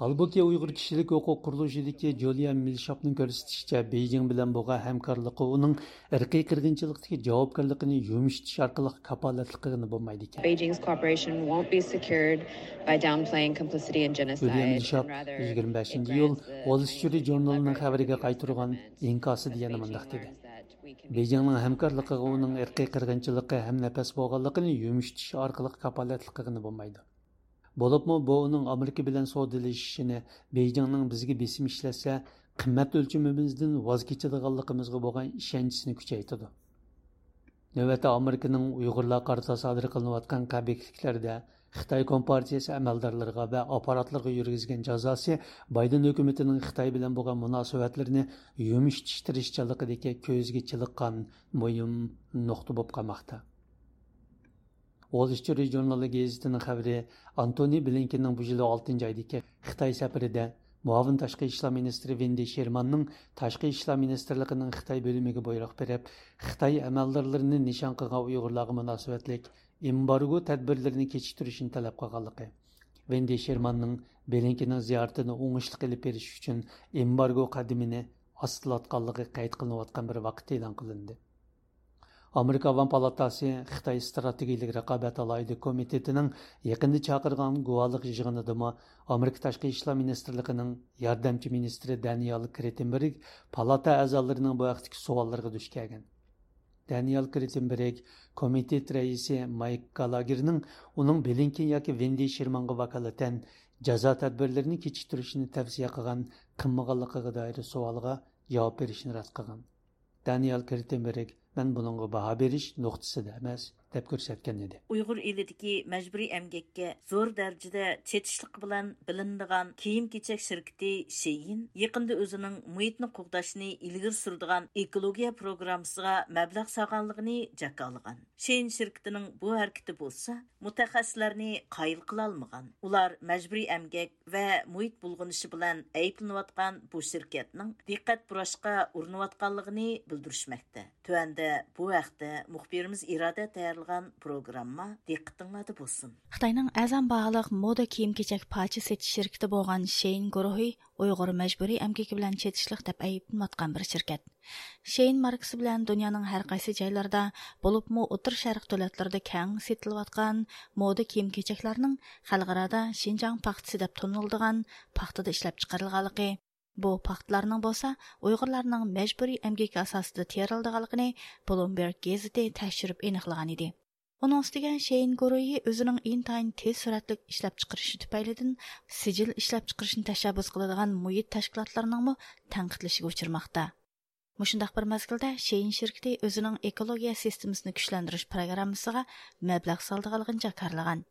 ھالبۇكى، ئۇيغۇر كىشىلىك ھوقۇق قۇرۇلۇشىدىكى جۇلىيا مىلشاپنىڭ كۆرسىتىشىچە، بېيجىڭ بىلەن بولغان ھەمكارلىقى ئۇنىڭ ئىرقىي قىرغىنچىلىقتىكى جاۋابكارلىقىنى يۇمشىتىش ئارقىلىق كاپالەتلىك قىلغىلى بولمايدىكەن. Beijing's cooperation won't be secured by downplaying complicity in genocide. جۇلىيا مىلشاپ يىگىرمە بەشىنچى ئىيۇل ۋول سترىت ژۇرنىلىنىڭ خەۋىرىگە قايتۇرغان ئىنكاسىدا يەنە مۇنداق دېدى: بېيجىڭنىڭ ھەمكارلىقىغا ئۇنىڭ ئىرقىي قىرغىنچىلىقى ھەمنەپەس بولغانلىقىنى يۇمشىتىش ئارقىلىق كاپالەتلىك قىلغىلى بولمايدۇ. بولۇپمۇ بۇ ئۇنىڭ ئامېرىكا بىلەن سودىلىشىشىنى، بېيجىڭنىڭ بىزگە بېسىم ئىشلەتسە، قىممەت ئۆلچىمىمىزدىن ۋاز كېچىدىغانلىقىمىزغا بولغان ئىشەنچىسىنى كۈچەيتىدۇ. نۆۋەتتە ئامېرىكىنىڭ ئۇيغۇرلارغا قارىتا سادىر قىلىنىۋاتقان قەبىھلىكلەردە خىتاي كومپارتىيىسى ئەمەلدارلىرىغا ۋە ئاپپاراتلىرىغا يۈرگۈزگەن جازاسى بايدېن ھۆكۈمىتىنىڭ خىتاي بىلەن بولغان مۇناسىۋەتلىرىنى يۇمشىتىش تىرىشچانلىقىدىكى كۆزگە چېلىققان مۇھىم نۇقتا بولۇپ قالماقتا. ۋول سترىت ژۇرنىلى گېزىتىنىڭ خەۋىرى ئانتونى بلىنكېننىڭ بۇ يىل ئالتىنچى ئايدىكى خىتاي سەپىرىدە مۇئاۋىن تاشقى ئىشلار مىنىستىرى ۋېندى شېرماننىڭ تاشقى ئىشلار مىنىستىرلىقىنىڭ خىتاي بۆلۈمىگە بۇيرۇق بېرىپ، خىتاي ئەمەلدارلىرىنى نىشان قىلغان ئۇيغۇرلارغا مۇناسىۋەتلىك ئېمبارگو تەدبىرلىرىنى كېچىكتۈرۈشنى تەلەپ قىلغانلىقى، ۋېندى شېرماننىڭ بلىنكېننىڭ زىيارىتىنى ئوڭۇشلۇق ئېلىپ بېرىش ئۈچۈن ئېمبارگو قەدىمىنى ئاستىلاتقانلىقى قەيت قىلىنىۋاتقان بىر ۋاقىتتا ئېلان قىلىندى. ئامېرىكا ئاۋام پالاتاسى خىتاي ئىستراتېگىيىلىك رىقابەت ئالاھىدە كومىتېتىنىڭ يېقىندا چاقىرغان گۇۋاھلىق يىغىنىدىمۇ ئامېرىكا تاشقى ئىشلار مىنىستىرلىقىنىڭ ياردەمچى مىنىستىرى دانىيال كرېتېنبېرگ پالاتا ئەزالىرىنىڭ بۇ ھەقتىكى سوئاللىرىغا دۇچ كەلگەن. دانىيال كرېتېنبېرگ كومىتېت رەئىسى مايك گالاگېرنىڭ ئۇنىڭ بلىنكېن ياكى ۋېندى شېرمانغا ۋاكالىتەن جازا تەدبىرلىرىنى كېچىكتۈرۈشنى تەۋسىيە قىلغان قىلمىغانلىقىغا دائىر سوئالىغا جاۋاب بېرىشنى رەت قىلغان. دانىيال كرېتېنبېرگ، مەن بۇنىڭغا باھا بېرىش نۇقتىسىدا ئەمەس، دەپ كۆرسەتكەن ئىدى. ئۇيغۇر ئېلىدىكى مەجبۇرىي ئەمگەككە زور دەرىجىدە چېتىشلىق بىلەن بىلىنىدىغان كىيىم-كېچەك شىركىتى شېيىن يېقىندا ئۆزىنىڭ مۇھىتنى قوغداشنى ئىلگىرى سۈرىدىغان ئېكولوگىيە پروگراممىسىغا مەبلەغ سالغانلىقىنى جاكارلىغان. شېيىن شىركىتىنىڭ بۇ ھەرىكىتى بولسا مۇتەخەسسىسلەرنى قايىل قىلالمىغان. ئۇلار مەجبۇرىي ئەمگەك ۋە مۇھىت بۇلغىنىشى بىلەن ئەيىبلىنىۋاتقان بۇ شىركەتنىڭ دىققەت بۇراشقا ئۇرۇنۇۋاتقانلىقىنى بىلدۈرۈشمەكتە. تۆۋەندە بۇ ھەقتە مۇخبىرىمىز ئىرادە تەييارلىغان پروگرامما دىققىتىڭلاردا بولسۇن. خىتاينىڭ ئەرزان باھالىق مودا كىيىم-كېچەك پارچە سېتىش شىركىتى بولغان شېيىن گۇرۇھى ئۇيغۇر مەجبۇرىي ئەمگىكى بىلەن چېتىشلىق دەپ ئەيىبلىنىۋاتقان بىر شىركەت. شېيىن ماركىسى بىلەن دۇنيانىڭ ھەر قايسى جايلىرىدا، بولۇپمۇ ئوتتۇرا شەرق دۆلەتلىرىدا كەڭ سېتىلىۋاتقان مودا كىيىم-كېچەكلەرنىڭ خەلقئارادا شىنجاڭ پاختىسى دەپ تونۇلىدىغان پاختىدا ئىشلەپچىقىرىلغانلىقى، بۇ پاختىلارنىڭ بولسا ئۇيغۇرلارنىڭ مەجبۇرىي ئەمگىكى ئاساسىدا تېرىلىدىغانلىقىنى بلومبېرگ گېزىتى تەكشۈرۈپ ئېنىقلىغان ئىدى. ئۇنىڭ ئۈستىگە شېيىن گۇرۇھى ئۆزىنىڭ ئىنتايىن تېز سۈرئەتلىك ئىشلەپچىقىرىشى تۈپەيلىدىن سىجىل ئىشلەپچىقىرىشنى تەشەببۇس قىلىدىغان مۇھىت تەشكىلاتلىرىنىڭمۇ تەنقىدلىشىگە ئۇچرىماقتا. مۇشۇنداق بىر مەزگىلدە شېيىن شىركىتى ئۆزىنىڭ ئېكولوگىيە سىستېمىسىنى كۈچلەندۈرۈش پروگراممىسىغا مەبلەغ سالىدىغانلىقىنى جاكارلىغان.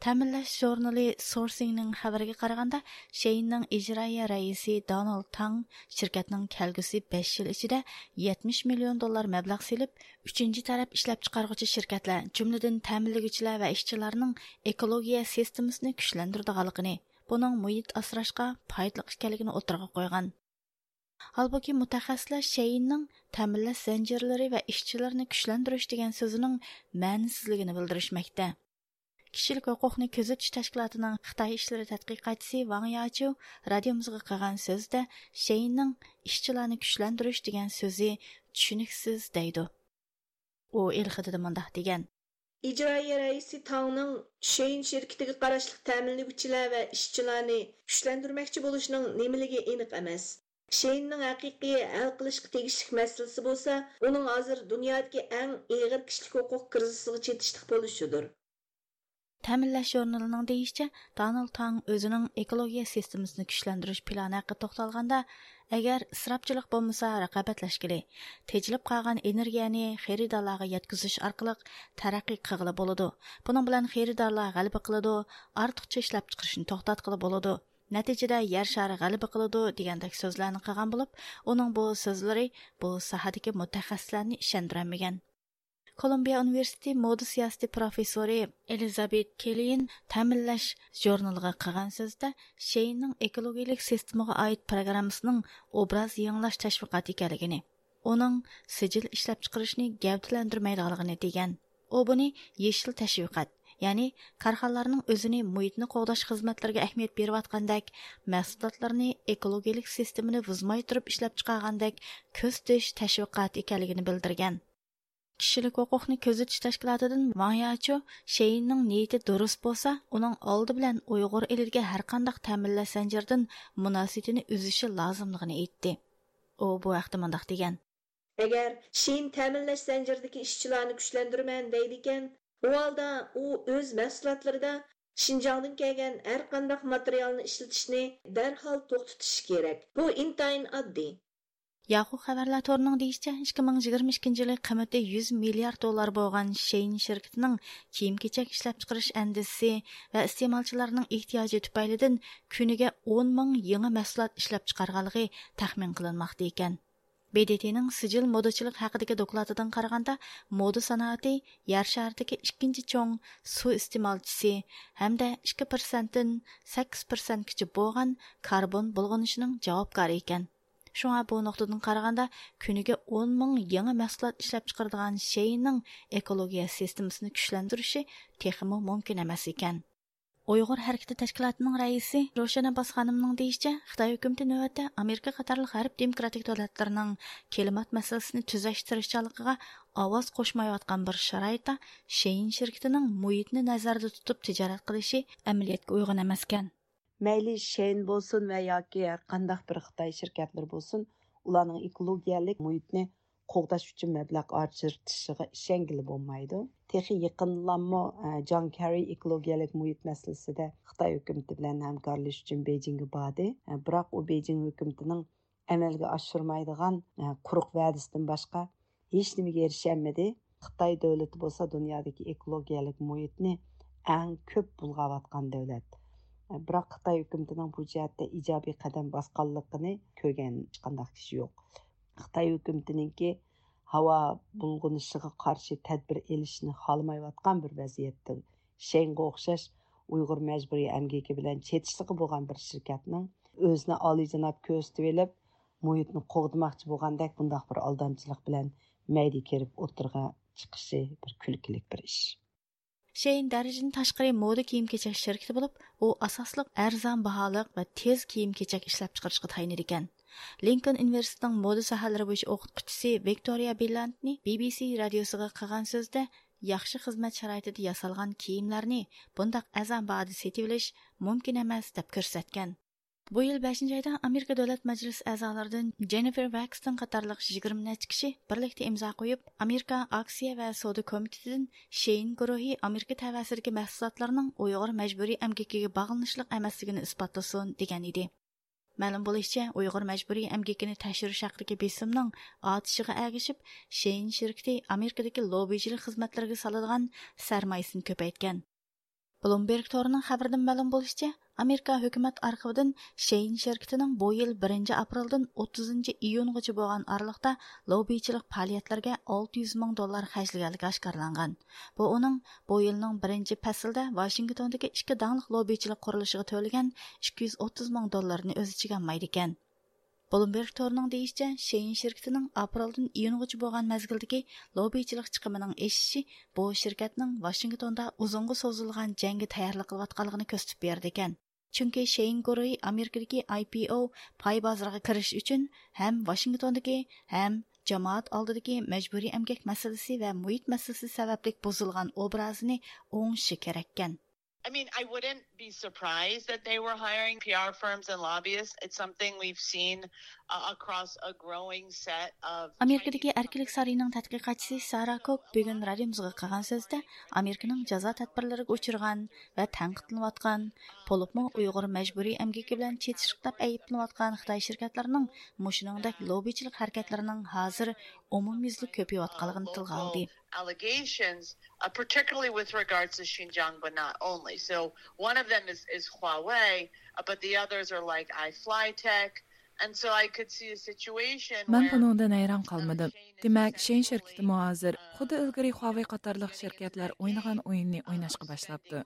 تەمىنلەش ژۇرنىلى سورسىڭنىڭ خەۋىرىگە قارىغاندا، شېيىننىڭ ئىجرائىيە رەئىسى دونالد تاڭ شىركەتنىڭ كەلگۈسى بەش يىل ئىچىدە يەتمىش مىليون دوللار مەبلەغ سېلىپ، ئۈچىنچى تەرەپ ئىشلەپچىقارغۇچى شىركەتلەر، جۈملىدىن تەمىنلىگۈچىلەر ۋە ئىشچىلارنىڭ ئېكولوگىيە سىستېمىسىنى كۈچلەندۈرىدىغانلىقىنى، بۇنىڭ مۇھىت ئاسراشقا پايدىلىق ئىكەنلىكىنى ئوتتۇرىغا قويغان. ھالبۇكى، مۇتەخەسسىسلەر شېيىننىڭ تەمىنلەش زەنجىرلىرى ۋە ئىشچىلىرىنى كۈچلەندۈرۈش دېگەن سۆزىنىڭ مەنىسىزلىكىنى بىلدۈرۈشمەكتە. كىشىلىك ھوقۇقنى كۆزىتىش تەشكىلاتىنىڭ خىتاي ئىشلىرى تەتقىقاتچىسى ۋاڭ ياچيۇ رادىيومىزغا قىلغان سۆزىدە شېيىننىڭ ئىشچىلارنى كۈچلەندۈرۈش دېگەن سۆزى چۈشىنىكسىز دەيدۇ. ئۇ ئېلخېتىدا مۇنداق دېگەن. ئىجرائىيە رەئىسى تاڭنىڭ شېيىن شىركىتىگە قاراشلىق تەمىنلىگۈچىلەر ۋە ئىشچىلارنى كۈچلەندۈرمەكچى بولۇشىنىڭ نېمىلىكى ئېنىق ئەمەس. شېيىننىڭ ھەقىقىي ھەل قىلىشقا تېگىشلىك مەسىلىسى بولسا، ئۇنىڭ ھازىر دۇنيادىكى ئەڭ ئېغىر كىشىلىك ھوقۇق كىرىزىسىغا چېتىشلىق بولۇشىدۇر. تەمىنلەش ژۇرنىلىنىڭ دېيىشىچە، دونالد تاڭ ئۆزىنىڭ ئېكولوگىيە سىستېمىسىنى كۈچلەندۈرۈش پىلانى ھەققىدە توختالغاندا، ئەگەر ئىسراپچىلىق بولمىسا رىقابەتلەشكىلى، تېجىلىپ قالغان ئېنېرگىيەنى خېرىدارلارغا يەتكۈزۈش ئارقىلىق تەرەققىي قىلغىلى بولىدۇ. بۇنىڭ بىلەن خېرىدارلار غەلىبە قىلىدۇ، ئارتۇقچە ئىشلەپچىقىرىشنى توختاتقىلى بولىدۇ. نەتىجىدە يەر شارى غەلىبە قىلىدۇ دېگەندەك سۆزلەرنى قىلغان بولۇپ، ئۇنىڭ بۇ سۆزلىرى بۇ ساھەدىكى مۇتەخەسسىسلەرنى ئىشەندۈرەلمىگەن. كولومبىيە ئۇنىۋېرسىتېتى مودا سىياسىتى پروفېسسورى ئېلىزابېت كېللىين تەمىنلەش ژۇرنىلىغا قىلغان سۆزىدە شېيىننىڭ ئېكولوگىيىلىك سىستېمىغا ئائىت پروگراممىسىنىڭ ئوبراز يېڭىلاش تەشۋىقاتى ئىكەنلىكىنى، ئۇنىڭ سىجىل ئىشلەپچىقىرىشنى گەۋدىلەندۈرمەيدىغانلىقىنى دېگەن. ئۇ بۇنى يېشىل تەشۋىقات، يەنى كارخانىلارنىڭ ئۆزىنى مۇھىتنى قوغداش خىزمەتلىرىگە ئەھمىيەت بېرىۋاتقاندەك، مەھسۇلاتلىرىنى ئېكولوگىيىلىك سىستېمىنى بۇزماي تۇرۇپ ئىشلەپچىقارغاندەك كۆرسىتىش تەشۋىقاتى ئىكەنلىكىنى بىلدۈرگەن. كىشىلىك ھوقۇقنى كۆزىتىش تەشكىلاتىدىن ۋاڭ ياچيۇ شېيىننىڭ نىيىتى دۇرۇس بولسا، ئۇنىڭ ئالدى بىلەن ئۇيغۇر ئېلىدىكى ھەرقانداق تەمىنلەش زەنجىرىدىن مۇناسىۋىتىنى ئۈزۈشى لازىملىقىنى ئېيتتى. ئۇ بۇ ھەقتە مۇنداق دېگەن. ئەگەر شېيىن تەمىنلەش زەنجىرىدىكى ئىشچىلارنى كۈچلەندۈرىمەن دەيدىكەن، ئۇ ھالدا ئۇ ئۆز مەھسۇلاتلىرىدا شىنجاڭدىن كەلگەن ھەرقانداق ماتېرىيالنى ئىشلىتىشنى دەرھال توختىتىشى كېرەك. بۇ ئىنتايىن ئاددىي. ياخۇ خەۋەرلەر تورىنىڭ دېيىشىچە، ئىككى مىڭ يىگىرمە ئىككىنچى يىلى قىممىتى يۈز مىليارد دوللار بولغان شېيىن شىركىتىنىڭ كىيىم-كېچەك ئىشلەپچىقىرىش ئەندىزىسى ۋە ئىستېمالچىلارنىڭ ئېھتىياجى تۈپەيلىدىن كۈنىگە ئون مىڭ يېڭى مەھسۇلات ئىشلەپچىقارغانلىقى تەخمىن قىلىنماقتا ئىكەن. ب د ت نىڭ سىجىل مودىچىلىق ھەققىدىكى دوكلاتىدىن قارىغاندا، مودا سانائىتى يەر شارىدىكى ئىككىنچى چوڭ سۇ ئىستېمالچىسى ھەمدە ئىككى پىرسەنتتىن سەككىز پىرسەنتكىچە بولغان كاربون بۇلغىنىشىنىڭ جاۋابكارى ئىكەن. شۇڭا بۇ نۇقتىدىن قارىغاندا، كۈنىگە ئون مىڭ يېڭى مەھسۇلات ئىشلەپچىقىرىدىغان شېيىننىڭ ئېكولوگىيە سىستېمىسىنى كۈچلەندۈرۈشى تېخىمۇ مۇمكىن ئەمەس ئىكەن. ئۇيغۇر ھەرىكىتى تەشكىلاتىنىڭ رەئىسى روشەن ئابباس خانىمنىڭ دېيىشىچە، خىتاي ھۆكۈمىتى نۆۋەتتە ئامېرىكا قاتارلىق غەرب دېموكراتىك دۆلەتلىرىنىڭ كىلىمات مەسىلىسىنى تۈزەش تىرىشچانلىقىغا ئاۋاز قوشمايۋاتقان بىر شارائىتتا شېيىن شىركىتىنىڭ مۇھىتنى نەزەردە تۇتۇپ تىجارەت قىلىشى ئەمەلىيەتكە ئۇيغۇن ئەمەسكەن. مەيلى شېيىن بولسۇن ۋە ياكى ھەر قانداق بىر خىتاي شىركەتلىرى بولسۇن، ئۇلارنىڭ ئېكولوگىيەلىك مۇھىتنى قوغداش ئۈچۈن مەبلەغ ئاجرىتىشىغا ئىشەنگىلى بولمايدۇ. تېخى يېقىندىلاممۇ، ئە، جان كېررى ئېكولوگىيەلىك مۇھىت مەسىلىسىدە خىتاي ھۆكۈمىتى بىلەن ھەمكارلىشىش ئۈچۈن بېيجىڭگە باردى. ئە، بىراق ئۇ بېيجىڭ ھۆكۈمىتىنىڭ ئەمەلگە ئاشۇرمايدىغان، ئە، قۇرۇق ۋەدىسىدىن باشقا ھېچنېمىگە ئېرىشەلمىدى. خىتاي دۆلىتى بولسا دۇنيادىكى ئېكولوگىيەلىك مۇھىتنى ئەڭ كۆپ بۇلغاۋاتقان دۆلەت. بىراق خىتاي ھۆكۈمىتىنىڭ بۇ جەھەتتە ئىجابىي قەدەم باسقانلىقىنى كۆرگەن ھېچقانداق كىشى يوق. خىتاي ھۆكۈمىتىنىڭكى ھاۋا بۇلغىنىشىغا قارشى تەدبىر ئېلىشنى خالىمايۋاتقان بىر ۋەزىيەتتە، شېڭگە ئوخشاش ئۇيغۇر مەجبۇرىي ئەمگىكى بىلەن چېتىشلىقى بولغان بىر شىركەتنىڭ ئۆزىنى ئالىيجاناب كۆرسىتىۋېلىپ، مۇھىتنى قوغدىماقچى بولغاندەك بۇنداق بىر ئالدامچىلىق بىلەن مەيدە كىرىپ ئوتتۇرىغا چىقىشى بىر كۈلكىلىك بىر ئىش. شېيىن دەرىجىدىن تاشقىرى مودا كىيىم-كېچەك شىركىتى بولۇپ، ئۇ ئاساسلىق ئەرزان باھالىق ۋە تېز كىيىم-كېچەك ئىشلەپچىقىرىشقا تايىنىدىكەن. لىنكولن ئۇنىۋېرسىتېتىنىڭ مودا ساھەلىرى بويىچە ئوقۇتقۇچىسى ۋىكتورىيا بىللاندنى بى بى سى رادىيوسىغا قىلغان سۆزىدە، ياخشى خىزمەت شارائىتىدا ياسالغان كىيىملەرنى بۇنداق ئەرزان باھادا سېتىۋېلىش مۇمكىن ئەمەس، دەپ كۆرسەتكەن. بۇ يىل بەشىنچى ئايدا ئامېرىكا دۆلەت مەجلىسى ئەزالىرىدىن جېننىفېر ۋاكستون قاتارلىق يىگىرمە نەچچە كىشى بىرلىكتە ئىمزا قويۇپ، ئامېرىكا ئاكسىيە ۋە سودا كومىتېتىدىن شېيىن گۇرۇھى ئامېرىكا تەۋەسىدىكى مەھسۇلاتلارنىڭ ئۇيغۇر مەجبۇرىي ئەمگىكىگە باغلىنىشلىق ئەمەسلىكىنى ئىسپاتلىسۇن، دېگەن ئىدى. مەلۇم بولۇشىچە، ئۇيغۇر مەجبۇرىي ئەمگىكىنى تەكشۈرۈش ھەققىدىكى بېسىمنىڭ ئارتىشىغا ئەگىشىپ، شېيىن شىركىتى ئامېرىكىدىكى لوببىچىلىق خىزمەتلىرىگە سالىدىغان سەرمايىسىنى كۆپەيتكەن. بلومبېرگ تورىنىڭ خەۋىرىدىن مەلۇم بولۇشىچە، ئامېرىكا ھۆكۈمەت ئارخىۋىدىن شېيىن شىركىتىنىڭ بۇ يىل بىرىنچى ئاپرېلدىن ئوتتۇزىنچى ئىيۇنغىچە بولغان ئارىلىقتا لوببىچىلىق پائالىيەتلەرگە ئالتە يۈز مىڭ دوللار خەجلىگەنلىكى ئاشكارىلانغان. بۇ ئۇنىڭ بۇ يىلنىڭ بىرىنچى پەسلىدە ۋاشىنگتوندىكى ئىككى داڭلىق لوببىچىلىق قۇرۇلۇشىغا تۆلىگەن ئىككى يۈز ئوتتۇز مىڭ دوللىرىنى ئۆز ئىچىگە ئالمايدىكەن. بلومبېرگ تورىنىڭ دېيىشىچە، شېيىن شىركىتىنىڭ ئاپرېلدىن ئىيۇنغىچە بولغان مەزگىلدىكى لوببىچىلىق چىقىمىنىڭ ئېشىشى بۇ شىركەتنىڭ ۋاشىنگتوندا ئۇزۇنغا سوزۇلغان جەڭگە تەييارلىق قىلىۋاتقانلىقىنى كۆرسىتىپ بېرىدىكەن. چۈنكى شېيىن گۇرۇھى ئامېرىكىدىكى ئاي پى ئو پاي بازىرىغا كىرىش ئۈچۈن ھەم ۋاشىنگتوندىكى، ھەم جامائەت ئالدىدىكى مەجبۇرىي ئەمگەك مەسىلىسى ۋە مۇھىت مەسىلىسى سەۋەبلىك بۇزۇلغان ئوبرازىنى ئوڭشىشى كېرەككەن. I mean, I wouldn't be surprised that they were hiring P R firms and lobbyists. It's something we've seen uh, across a growing set of ئامېرىكىدىكى ئەركىنلىك سارىيىنىڭ تەتقىقاتچىسى سارا كوك بۈگۈن رادىيومىزغا قىلغان سۆزىدە، ئامېرىكىنىڭ جازا تەدبىرلىرىگە ئۇچرىغان ۋە تەنقىدلىنىۋاتقان، بولۇپمۇ ئۇيغۇر مەجبۇرىي ئەمگىكى بىلەن چېتىشلىق دەپ ئەيىبلىنىۋاتقان خىتاي شىركەتلىرىنىڭ مۇشۇنىڭدەك لوببىچىلىق ھەرىكەتلىرىنىڭ ھازىر ئومۇميۈزلۈك كۆپىيىۋاتقانلىقىنى تىلغا ئالدى. Allegations, uh, particularly with regards to Xinjiang, but not only. So one of them is, is Huawei, uh, but the others are like iFlytek. And so I could see a situation مەن where بۇنىڭدىن ھەيران قالمىدىم. دېمەك، شېيىن شىركىتىمۇ ھازىر خۇددى ئىلگىرى خۇاۋېي قاتارلىق شىركەتلەر ئوينىغان ئويۇننى ئويناشقا باشلاپتۇ.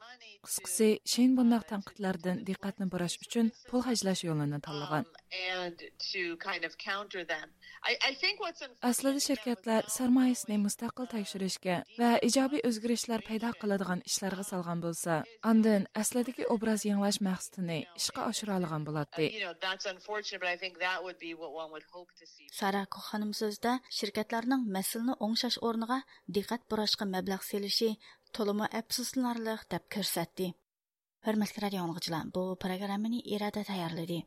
قىسقىسى، شېيىن بۇنداق تەنقىدلەردىن دىققەتنى بۇراش ئۈچۈن پۇل خەجلەش يولىنى تاللىغان. Um, and to kind of counter them. I, I think what's ئەسلىدە شىركەتلەر سەرمايىسىنى مۇستەقىل تەكشۈرۈشكە ۋە ئىجابىي ئۆزگىرىشلەر پەيدا قىلىدىغان ئىشلارغا سالغان بولسا، ئاندىن ئەسلىدىكى ئوبراز يېڭىلاش مەقسىتىنى ئىشقا ئاشۇرالىغان بولاتتى. You know, that's unfortunate, but I think that would be what one would hope to see. سارا كوخ خانىم سۆزىدە شىركەتلەرنىڭ مەسىلىنى ئوڭشاش ئورنىغا دىققەت بۇراشقا مەبلەغ سېلىشى تولىمۇ ئەپسۇسلىنارلىق دەپ كۆرسەتتى. ھۆرمەتلىك رادىيو ئاڭلىغۇچىلار، بۇ پروگراممىنى ئىرادە تەييارلىدى.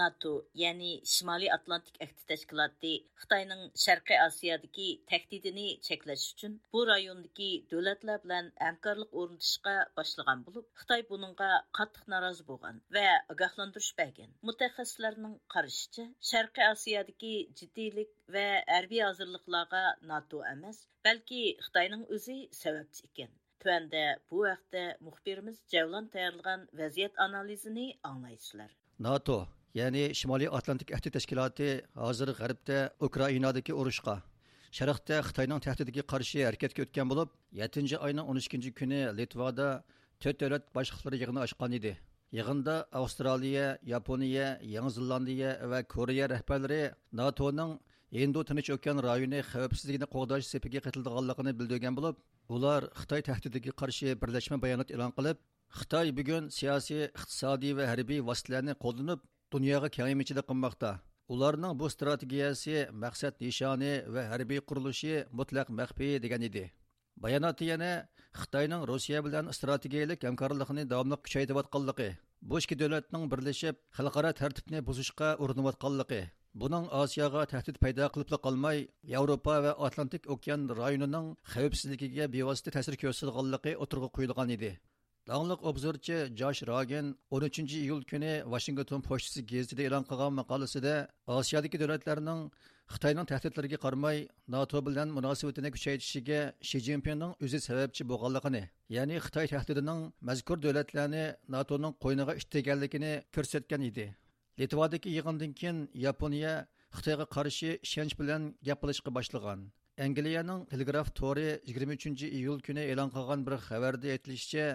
ناتو، يەنى شىمالىي ئاتلانتىك ئەھدى تەشكىلاتى خىتاينىڭ شەرقىي ئاسىيادىكى تەھدىتىنى چەكلەش ئۈچۈن بۇ رايوندىكى دۆلەتلەر بىلەن ھەمكارلىق ئورنىتىشقا باشلىغان بولۇپ، خىتاي بۇنىڭغا قاتتىق نارازى بولغان ۋە ئاگاھلاندۇرۇش بەرگەن. مۇتەخەسسىسلەرنىڭ قارىشىچە، شەرقىي ئاسىيادىكى جىددىيلىك ۋە ھەربىي ھازىرلىقلارغا ناتو ئەمەس، بەلكى خىتاينىڭ ئۆزى سەۋەبچى ئىكەن. تۆۋەندە بۇ ھەقتە مۇخبىرىمىز جەۋلان تەييارلىغان ۋەزىيەت ئانالىزىنى ئاڭلايسىلەر. ناتو، يەنى شىمالىي ئاتلانتىك ئەھدى تەشكىلاتى ھازىر غەربتە ئۇكرائىنادىكى ئۇرۇشقا، شەرقتە خىتاينىڭ تەھدىتىگە قارشى ھەرىكەتكە ئۆتكەن بولۇپ، يەتتىنچى ئاينىڭ ئون ئىككىنچى كۈنى لىتۋادا تۆت دۆلەت باشلىقلىرى يىغىنى ئاچقان ئىدى. يىغىندا ئاۋسترالىيە، ياپونىيە، يېڭى زېلاندىيە ۋە كورېيە رەھبەرلىرى ناتونىڭ ھىندى تىنچ ئوكيان رايونى خەۋپسىزلىكىنى قوغداش سېپىگە قېتىلىدىغانلىقىنى بىلدۈرگەن بولۇپ، ئۇلار خىتاي تەھدىتىگە قارشى بىرلەشمە بايانات ئېلان قىلىپ، خىتاي بۈگۈن سىياسىي، ئىقتىسادىي ۋە ھەربىي ۋاسىتىلەرنى قوللىنىپ، دۇنياغا كېڭەيمىچىلىك قىلماقتا. ئۇلارنىڭ بۇ ئىستراتېگىيەسى، مەقسەت نىشانى ۋە ھەربىي قۇرۇلۇشى مۇتلەق مەخپىي، دېگەن ئىدى. باياناتتا يەنە خىتاينىڭ روسىيە بىلەن ئىستراتېگىيەلىك ھەمكارلىقىنى داۋاملىق كۈچەيتىۋاتقانلىقى، بۇ ئىككى دۆلەتنىڭ بىرلىشىپ خەلقئارا تەرتىپنى بۇزۇشقا ئۇرۇنۇۋاتقانلىقى، بۇنىڭ ئاسىياغا تەھدىت پەيدا قىلىپلا قالماي، ياۋروپا ۋە ئاتلانتىك ئوكيان رايونىنىڭ خەۋپسىزلىكىگە بىۋاسىتە تەسىر كۆرسىتىدىغانلىقى ئوتتۇرىغا قويۇلغان ئىدى. داڭلىق ئوبزورچى جاش راگېن ئون ئۈچىنچى ئىيۇل كۈنى ۋاشىنگتون پوچتىسى گېزىتىدە ئېلان قىلغان ماقالىسىدە، ئاسىيادىكى دۆلەتلەرنىڭ خىتاينىڭ تەھدىتلىرىگە قارىماي، ناتو بىلەن مۇناسىۋىتىنى كۈچەيتىشىگە شى جىنپىڭنىڭ ئۆزى سەۋەبچى بولغانلىقىنى، يەنى خىتاي تەھدىتىنىڭ مەزكۇر دۆلەتلەرنى ناتونىڭ قوينىغا ئىتتىرگەنلىكىنى كۆرسەتكەن ئىدى. لىتۋادىكى يىغىندىن كېيىن ياپونىيە خىتايغا قارشى ئىشەنچ بىلەن گەپ قىلىشقا باشلىغان. ئەنگلىيەنىڭ تېلېگراف تورى يىگىرمە ئۈچىنچى ئىيۇل كۈنى ئېلان قىلغان بىر خەۋەردە ئېيتىلىشىچە،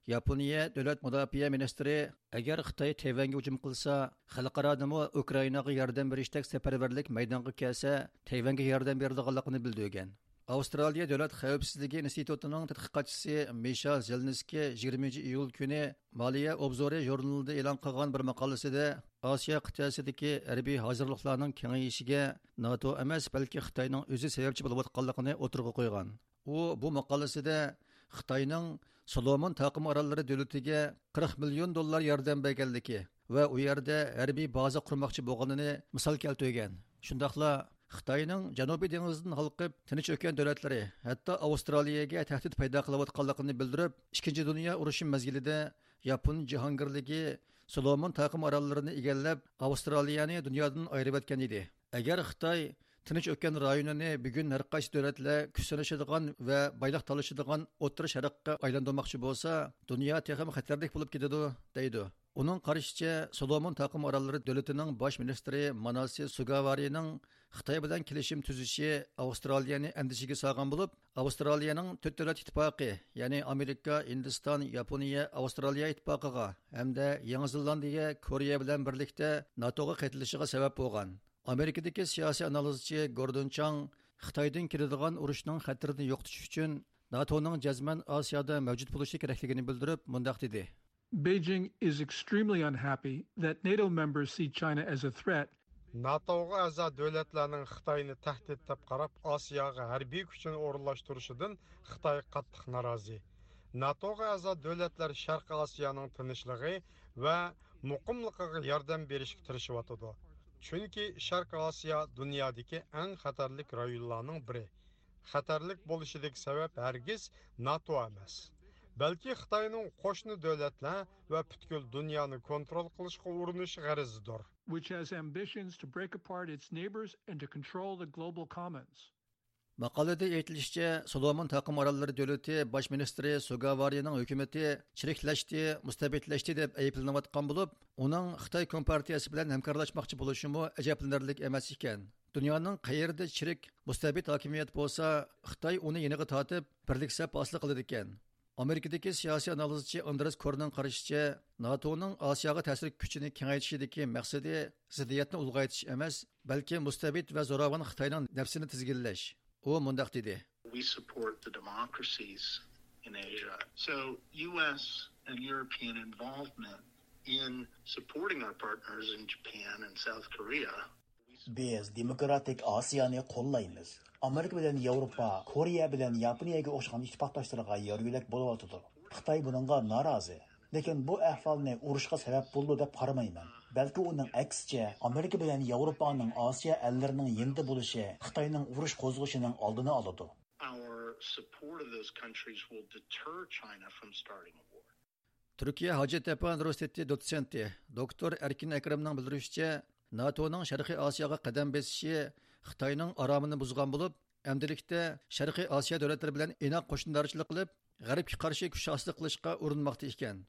ياپونىيە دۆلەت مۇداپىئە مىنىستىرى، ئەگەر خىتاي تەيۋەنگە ھۇجۇم قىلسا، خەلقئارادىمۇ ئۇكرائىناغا ياردەم بېرىشتەك سەپەرۋەرلىك مەيدانغا كەلسە، تەيۋەنگە ياردەم بېرىدىغانلىقىنى بىلدۈرگەن. ئاۋسترالىيە دۆلەت خەۋپسىزلىكى ئىنستىتۇتىنىڭ تەتقىقاتچىسى مىشا زېلنىسكىي يىگىرمىنچى ئىيۇل كۈنى مالىيە ئوبزورى ژۇرنىلىدا ئېلان قىلغان بىر ماقالىسىدە، ئاسىيا قىتئەسىدىكى ھەربىي ھازىرلىقلارنىڭ كېڭىيىشىگە ناتو ئەمەس، بەلكى خىتاينىڭ ئۆزى سەۋەبچى بولۇۋاتقانلىقىنى ئوتتۇرىغا قويغان. ئۇ بۇ ماقالىسىدە خىتاينىڭ سولومون تاقىم ئاراللىرى دۆلىتىگە قىرىق مىليون دوللار ياردەم بەرگەنلىكى ۋە ئۇ يەردە ھەربىي بازا قۇرماقچى بولغىنىنى مىسال كەلتۈرگەن. شۇنداقلا خىتاينىڭ جەنۇبىي دېڭىزدىن ھالقىپ، تىنچ ئۆكەن دۆلەتلىرى، ھەتتا ئاۋسترالىيەگە تەھدىت پەيدا قىلىۋاتقانلىقىنى بىلدۈرۈپ، ئىككىنچى دۇنيا ئۇرۇشى مەزگىلىدە ياپون جاھانگىرلىكى سولومون تاقىم ئاراللىرىنى ئىگىلەپ، ئاۋسترالىيەنى دۇنيادىن ئايرىۋەتكەن ئىدى. ئەگەر خىتاي تىنچ ئۆكەن رايونىنى بۈگۈن ھەرقايسى دۆلەتلەر كۈچ سىنىشىدىغان ۋە بايلىق تالىشىدىغان ئوتتۇرا شەرققە ئايلاندۇرماقچى بولسا، دۇنيا تېخىمۇ خەتەرلىك بولۇپ كېتىدۇ، دەيدۇ. ئۇنىڭ قارىشىچە، سولومون تاقىم ئاراللىرى دۆلىتىنىڭ باش مىنىستىرى ماناسى سۇگاۋارىنىڭ خىتاي بىلەن كېلىشىم تۈزۈشى ئاۋسترالىيەنى ئەندىشىگە سالغان بولۇپ، ئاۋسترالىيەنىڭ تۆت دۆلەت ئىتتىپاقى، يەنى ئامېرىكا، ھىندىستان، ياپونىيە، ئاۋسترالىيە ئىتتىپاقىغا ھەمدە يېڭى زېلاندىيە، كورېيە بىلەن بىرلىكتە ناتوغا قېتىلىشىغا سەۋەب بولغان. ئامېرىكىدىكى سىياسىي ئانالىزچى گوردون چاڭ خىتايدىن كېلىدىغان ئۇرۇشنىڭ خەتىرىنى يوقىتىش ئۈچۈن ناتونىڭ جەزمەن ئاسىيادا مەۋجۇت بولۇشى كېرەكلىكىنى بىلدۈرۈپ، مۇنداق دېدى. Beijing is extremely unhappy that NATO members see China as a threat. ناتوغا ئەزا دۆلەتلەرنىڭ خىتاينى تەھدىت دەپ قاراپ، ئاسىياغا ھەربىي كۈچىنى ئورۇنلاشتۇرۇشىدىن خىتاي قاتتىق نارازى. ناتوغا ئەزا دۆلەتلەر شەرقىي ئاسىيانىڭ تىنچلىقى ۋە مۇقىملىقىغا ياردەم بېرىشكە تىرىشىۋاتىدۇ. چۈنكى شەرقىي ئاسىيا دۇنيادىكى ئەڭ خەتەرلىك رايونلارنىڭ بىرى. خەتەرلىك بولۇشىدىكى سەۋەب ھەرگىز ناتو ئەمەس، بەلكى خىتاينىڭ قوشنا دۆلەتلەر ۋە پۈتكۈل دۇنيانى كونترول قىلىشقا ئۇرۇنۇش غەرىزىدۇر. Which has ambitions to break apart its neighbors and to control the global commons. ماقالىدە ئېيتىلىشىچە، سولومون تاقىم ئاراللىرى دۆلىتى باش مىنىستىرى سۇگاۋارىنىڭ ھۆكۈمىتى چىرىكلەشتى، مۇستەبىتلەشتى دەپ ئەيىبلىنىۋاتقان بولۇپ، ئۇنىڭ خىتاي كومپارتىيەسى بىلەن ھەمكارلاشماقچى بولۇشىمۇ ئەجەبلىنەرلىك ئەمەس ئىكەن. دۇنيانىڭ قەيەردە چىرىك، مۇستەبىت ھاكىمىيەت بولسا، خىتاي ئۇنى يېنىغا تارتىپ، بىرلىك سەپ ھاسىل قىلىدىكەن. ئامېرىكىدىكى سىياسىي ئانالىزچى ئاندرېس كورنىڭ قارىشىچە، ناتونىڭ ئاسىياغا تەسىر كۈچىنى كېڭەيتىشىدىكى مەقسىتى زىددىيەتنى ئۇلغايتىش ئەمەس، بەلكى مۇستەبىت ۋە زوراۋان خىتاينىڭ نەپسىنى تىزگىنلەش. ئۇ مۇنداق دېدى. We support the democracies in Asia. So U S and European involvement in supporting our partners in Japan and South Korea. بىز دېموكراتىك ئاسىيانى قوللايمىز. ئامېرىكا بىلەن ياۋروپا، كورېيە بىلەن ياپونىيەگە ئوخشىغان ئىتتىپاقداشلىرىغا يار يۆلەك بولۇۋاتىدۇ. خىتاي بۇنىڭغا نارازى. لېكىن بۇ ئەھۋالنى ئۇرۇشقا سەۋەب بولىدۇ دەپ قارىمايمەن. بەلكى ئۇنىڭ ئەكسىچە، ئامېرىكا بىلەن ياۋروپانىڭ ئاسىيا ئەللىرىنىڭ يېنىدا بولۇشى خىتاينىڭ ئۇرۇش قوزغىشىنىڭ ئالدىنى ئالىدۇ. Our support of those countries will deter China from starting a war. تۈركىيە ھاجەتئاپا ئۇنىۋېرسىتېتى دوتسېنتى، دوكتور ئەركىن ئەكرەمنىڭ بىلدۈرۈشىچە، ناتونىڭ شەرقىي ئاسىياغا قەدەم بېسىشى خىتاينىڭ ئارامىنى بۇزغان بولۇپ، ئەمدىلىكتە شەرقىي ئاسىيا دۆلەتلىرى بىلەن ئىناق قوشنىدارچىلىق قىلىپ، غەربكە قارشى كۈچ ھاسىل قىلىشقا ئۇرۇنماقتا ئىكەن.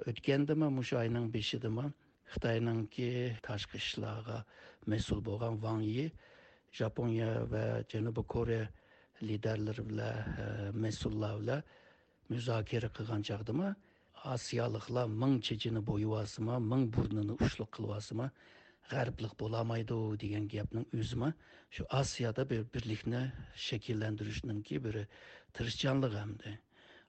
ئۆتكەندىمۇ، مۇشۇ ئاينىڭ بېشىدىمۇ خىتاينىڭكى تاشقى ئىشلارغا مەسئۇل بولغان ۋاڭ يى ژاپونىيە ۋە جەنۇبىي كورېيە لىدەرلىرى بىلەن، مەسئۇللار بىلەن مۇزاكىرە قىلغان چاغدىمۇ، ئاسىيالىقلار مىڭ چېچىنى بويىۋالسىمۇ، مىڭ بۇرنىنى ئۇچلۇق قىلىۋالسىمۇ، غەربلىق بولالمايدۇ دېگەن گەپنىڭ ئۆزىمۇ شۇ ئاسىيادا بىر بىرلىكنى شەكىللەندۈرۈشنىڭكى بىر تىرىشچانلىقى ئەمدى.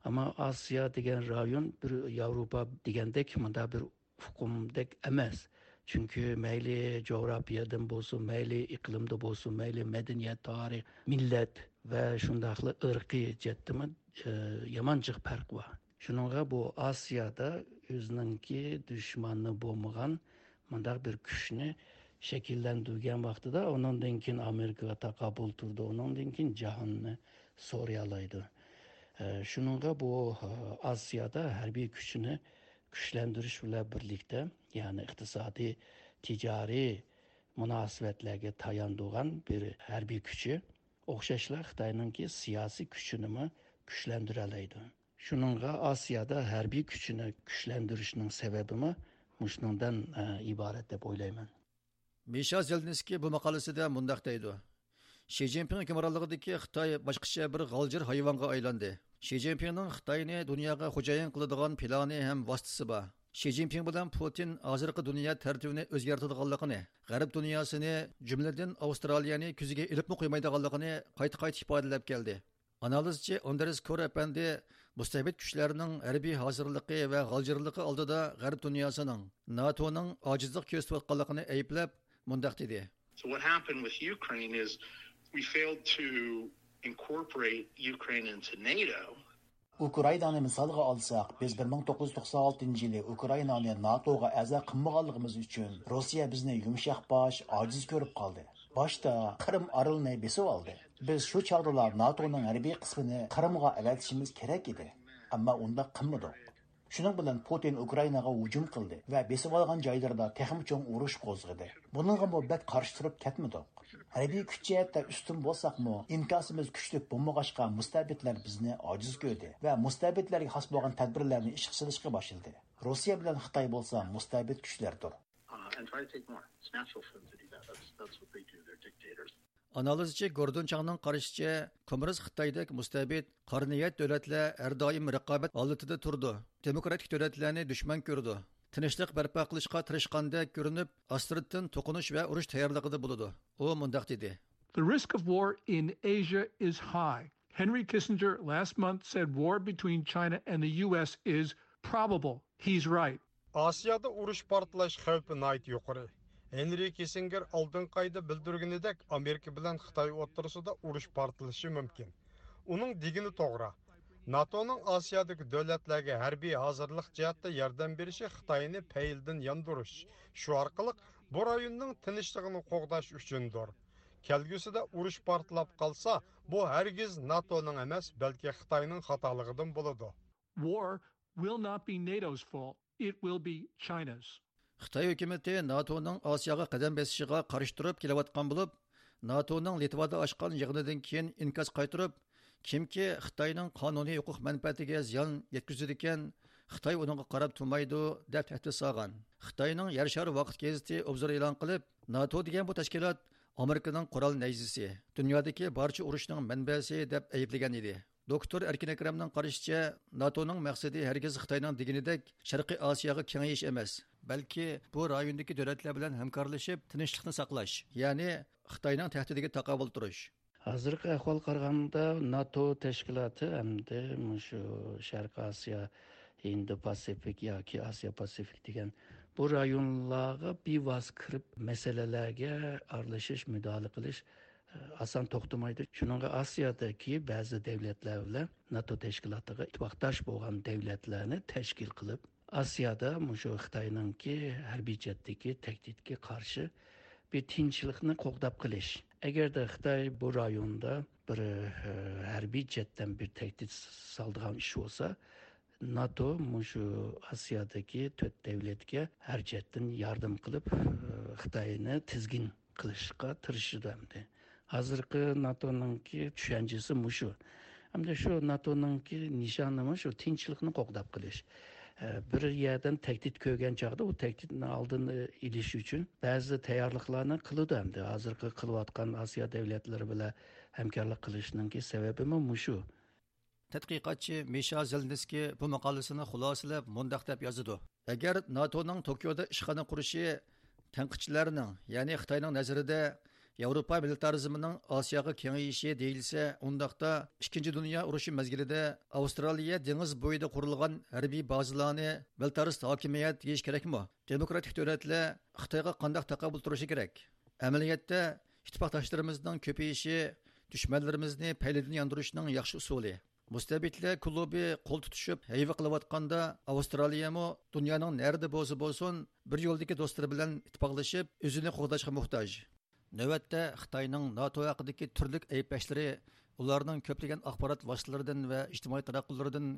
ئەمما ئاسىيا دېگەن رايون بىر ياۋروپا دېگەندەك مۇنداق بىر ئۇقۇمدەك ئەمەس. چۈنكى مەيلى جۇغراپىيەدىن بولسۇن، مەيلى ئىقلىمدا بولسۇن، مەيلى مەدەنىيەت، تارىخ، مىللەت ۋە شۇنداقلا ئىرقىي جەھەتتىمۇ، ئى، يامان جىق پەرق بار. شۇنىڭغا بۇ ئاسىيادا ئۆزىنىڭكى دۈشمىنى بولمىغان مۇنداق بىر كۈچنى شەكىللەندۈرگەن ۋاقتىدا ئۇنىڭدىن كېيىن ئامېرىكىغا تاقابىل تۇرىدۇ، ئۇنىڭدىن كېيىن جاھاننى سورىيالايدۇ. ئە، شۇنىڭغا بۇ، ئە، ئاسىيادا ھەربىي كۈچىنى كۈچلەندۈرۈش بىلەن بىرلىكتە، يەنى ئىقتىسادىي، تىجارىي مۇناسىۋەتلەرگە تايانىدىغان بىر ھەربىي كۈچى ئوخشاشلا خىتاينىڭكى سىياسىي كۈچىنىمۇ كۈچلەندۈرەلەيدۇ. شۇنىڭغا ئاسىيادا ھەربىي كۈچىنى كۈچلەندۈرۈشنىڭ سەۋەبىمۇ مۇشۇنىڭدىن، ئە، ئىبارەت دەپ ئويلايمەن. مىشا زېلنىسكىي بۇ ماقالىسىدە مۇنداق دەيدۇ: شى جىنپىڭ ھۆكۈمرانلىقىدىكى خىتاي باشقىچە بىر غالجىر ھايۋانغا ئايلاندى. شى جىنپىڭنىڭ خىتاينى دۇنياغا خوجايىن قىلىدىغان پىلانى ھەم ۋاسىتىسى بار. شى جىنپىڭ بىلەن پۇتىن ھازىرقى دۇنيا تەرتىپىنى ئۆزگەرتىدىغانلىقىنى، غەرب دۇنياسىنى، جۈملىدىن ئاۋسترالىيەنى كۆزىگە ئىلىپمۇ قويمايدىغانلىقىنى قايتا-قايتا ئىپادىلەپ كەلدى. ئانالىزچى ئاندرېس كور ئەپەندى مۇستەبىت كۈچلەرنىڭ ھەربىي ھازىرلىقى ۋە غالجىرلىقى ئالدىدا غەرب دۇنياسىنىڭ، ناتونىڭ ئاجىزلىق كۆرسىتىۋاتقانلىقىنى ئەيىبلەپ، مۇنداق دېدى. So what happened with Ukraine is we failed to incorporate Ukraine into NATO. ئۇكرائىنانى مىسالغا ئالساق، بىز بىر مىڭ توققۇز يۈز توقسان ئالتىنچى يىلى ئۇكرائىنانى ناتوغا ئەزا قىلمىغانلىقىمىز ئۈچۈن روسىيە بىزنى يۇمشاق باش، ئاجىز كۆرۈپ قالدى. باشتا قىرىم ئارىلىنى بېسىۋالدى. بىز شۇ چاغدىلا ناتونىڭ ھەربىي قىسمىنى قىرىمغا ئەۋەتىشىمىز كېرەك ئىدى. ئەمما ئۇنداق قىلمىدۇق. شۇنىڭ بىلەن پۇتىن ئۇكرائىناغا ھۇجۇم قىلدى ۋە بېسىۋالغان جايلىرىدا تېخىمۇ چوڭ ئۇرۇش قوزغىدى. بۇنىڭغىمۇ بەك قارشى تۇرۇپ كەتمىدۇق. ھەربىي كۈچ جەھەتتە ئۈستۈن بولساقمۇ، ئىنكاسىمىز كۈچلۈك بولمىغاچقا، مۇستەبىتلەر بىزنى ئاجىز كۆردى ۋە مۇستەبىتلەرگە خاس بولغان تەدبىرلەرنى ئىشقا سېلىشقا باشلىدى. روسىيە بىلەن خىتاي بولسا مۇستەبىت كۈچلەردۇر. Uh, and try to take more. It's natural for them to do that. That's, that's what they do. They're dictators. ئانالىزچى گوردون چاڭنىڭ قارىشىچە، كوممۇنىست خىتايدەك مۇستەبىت، قارا نىيەت دۆلەتلەر ھەر دائىم رىقابەت ھالىتىدە تۇرىدۇ، دېموكراتىك دۆلەتلەرنى دۈشمەن كۆرىدۇ، تىنچلىق بەرپا قىلىشقا تىرىشقاندەك كۆرۈنۈپ، ئاستىرتىن توقۇنۇش ۋە ئۇرۇش تەييارلىقىدا بولىدۇ. ئۇ مۇنداق دېدى. The risk of war in Asia is high. Henry Kissinger last month said war between China and the U S is probable. He's right. ئاسىيادا ئۇرۇش پارتلاش خەۋپى ناھايىتى يۇقىرى. ھېنرى كىسسىنگېر ئالدىنقى ئايدا بىلدۈرگىنىدەك، ئامېرىكا بىلەن خىتاي ئوتتۇرىسىدا ئۇرۇش پارتلىشى مۇمكىن. ئۇنىڭ دېگىنى توغرا. ناتونىڭ ئاسىيادىكى دۆلەتلەرگە ھەربىي ھازىرلىق جەھەتتە ياردەم بېرىشى خىتاينى پەيلىدىن ياندۇرۇش، شۇ ئارقىلىق بۇ رايوننىڭ تىنچلىقىنى قوغداش ئۈچۈندۇر. كەلگۈسىدە ئۇرۇش پارتلاپ قالسا، بۇ ھەرگىز ناتونىڭ ئەمەس، بەلكى خىتاينىڭ خاتالىقىدىن بولىدۇ. War will not be NATO's fault. It will be China's. خىتاي ھۆكۈمىتى ناتونىڭ ئاسىياغا قەدەم بېسىشىغا قارشى تۇرۇپ كېلىۋاتقان بولۇپ، ناتونىڭ لىتۋادا ئاچقان يىغىنىدىن كېيىن ئىنكاس قايتۇرۇپ، كىمكى خىتاينىڭ قانۇنىي ھوقۇق مەنپەئەتىگە زىيان يەتكۈزىدىكەن، خىتاي ئۇنىڭغا قاراپ تۇرمايدۇ، دەپ تەھدىت سالغان. خىتاينىڭ يەر شارى ۋاقىت گېزىتى ئوبزور ئېلان قىلىپ، ناتو دېگەن بۇ تەشكىلات ئامېرىكىنىڭ قورال نەيزىسى، دۇنيادىكى بارچە ئۇرۇشنىڭ مەنبەسى، دەپ ئەيىبلىگەن ئىدى. دوكتور ئەركىن ئەكرەمنىڭ قارىشىچە، ناتونىڭ مەقسىتى ھەرگىز خىتاينىڭ دېگىنىدەك شەرقىي ئاسىياغا كېڭىيىش ئەمەس، بەلكى بۇ رايوندىكى دۆلەتلەر بىلەن ھەمكارلىشىپ، تىنچلىقنى ساقلاش، يەنى خىتاينىڭ تەھدىتىگە تاقابىل تۇرۇش. ھازىرقى ئەھۋالغا قارىغاندا، ناتو تەشكىلاتى ئەمدى مۇشۇ شەرقىي ئاسىيا، ھىندى پاسىفىك ياكى ئاسىيا پاسىفىك دېگەن بۇ رايونلارغا بىۋاسىتە كىرىپ، مەسىلىلەرگە ئارىلىشىش، مۇداخىلە قىلىش ئاسان توختىمايدۇ. شۇنىڭغا ئاسىيادىكى بەزى دۆلەتلەر بىلەن ناتو تەشكىلاتىغا ئىتتىپاقداش بولغان دۆلەتلەرنى تەشكىل قىلىپ، ئاسىيادا مۇشۇ خىتاينىڭكى ھەربىي جەھەتتىكى تەھدىتكە قارشى بىر تىنچلىقنى قوغداپ قېلىش. ئەگەردە خىتاي بۇ رايوندا بىر، ئە، ھەربىي جەھەتتىن بىر تەھدىت سالىدىغان ئىش بولسا، ناتو مۇشۇ ئاسىيادىكى تۆت دۆلەتكە ھەر جەھەتتىن ياردەم قىلىپ، ئە، خىتاينى تىزگىن قىلىشقا تىرىشىدۇ ئەمدى. ھازىرقى ناتونىڭكى چۈشەنچىسى مۇشۇ. ئەمدى شۇ ناتونىڭكى نىشانىمۇ شۇ تىنچلىقنى قوغداپ قېلىش. ئە، بىر يەردىن تەھدىت كۆرگەن چاغدا ئۇ تەھدىتنى ئالدىنى ئېلىش ئۈچۈن بەزى تەييارلىقلارنى قىلىدۇ ئەمدى. ھازىرقى قىلىۋاتقان ئاسىيا دۆلەتلىرى بىلەن ھەمكارلىق قىلىشنىڭكى سەۋەبىمۇ مۇشۇ. تەتقىقاتچى مىشا زېلنىسكىي بۇ ماقالىسىنى خۇلاسىلەپ مۇنداق دەپ يازىدۇ: ئەگەر ناتونىڭ توكيودا ئىشخانا قۇرۇشى تەنقىدچىلەرنىڭ، يەنى خىتاينىڭ نەزىرىدە ياۋروپا مىلىتارىزمىنىڭ ئاسىياغا كېڭىيىشى دېيىلسە، ئۇنداقتا ئىككىنچى دۇنيا ئۇرۇشى مەزگىلىدە ئاۋسترالىيە دېڭىز بويىدا قۇرۇلغان ھەربىي بازىلارنى مىلىتارىست ھاكىمىيەت دېيىش كېرەكمۇ؟ دېموكراتىك دۆلەتلەر خىتايغا قانداق تاقابىل تۇرۇشى كېرەك؟ ئەمەلىيەتتە، ئىتتىپاقداشلىرىمىزنىڭ كۆپىيىشى دۈشمەنلىرىمىزنى پەيلىدىن ياندۇرۇشنىڭ ياخشى ئۇسۇلى. مۇستەبىتلەر كۇلۇبى قول تۇتۇشۇپ ھەيۋە قىلىۋاتقاندا، ئاۋسترالىيەمۇ دۇنيانىڭ نەرىدە بولسا بولسۇن، بىر يولدىكى دوستلىرى بىلەن ئىتتىپاقلىشىپ، ئۆزىنى قوغداشقا موھتاج. نۆۋەتتە خىتاينىڭ ناتو ھەققىدىكى تۈرلۈك ئەيىبلەشلىرى ئۇلارنىڭ كۆپلىگەن ئاخبارات ۋاسىتىلىرىدىن ۋە ئىجتىمائىي تاراتقۇلىرىدىن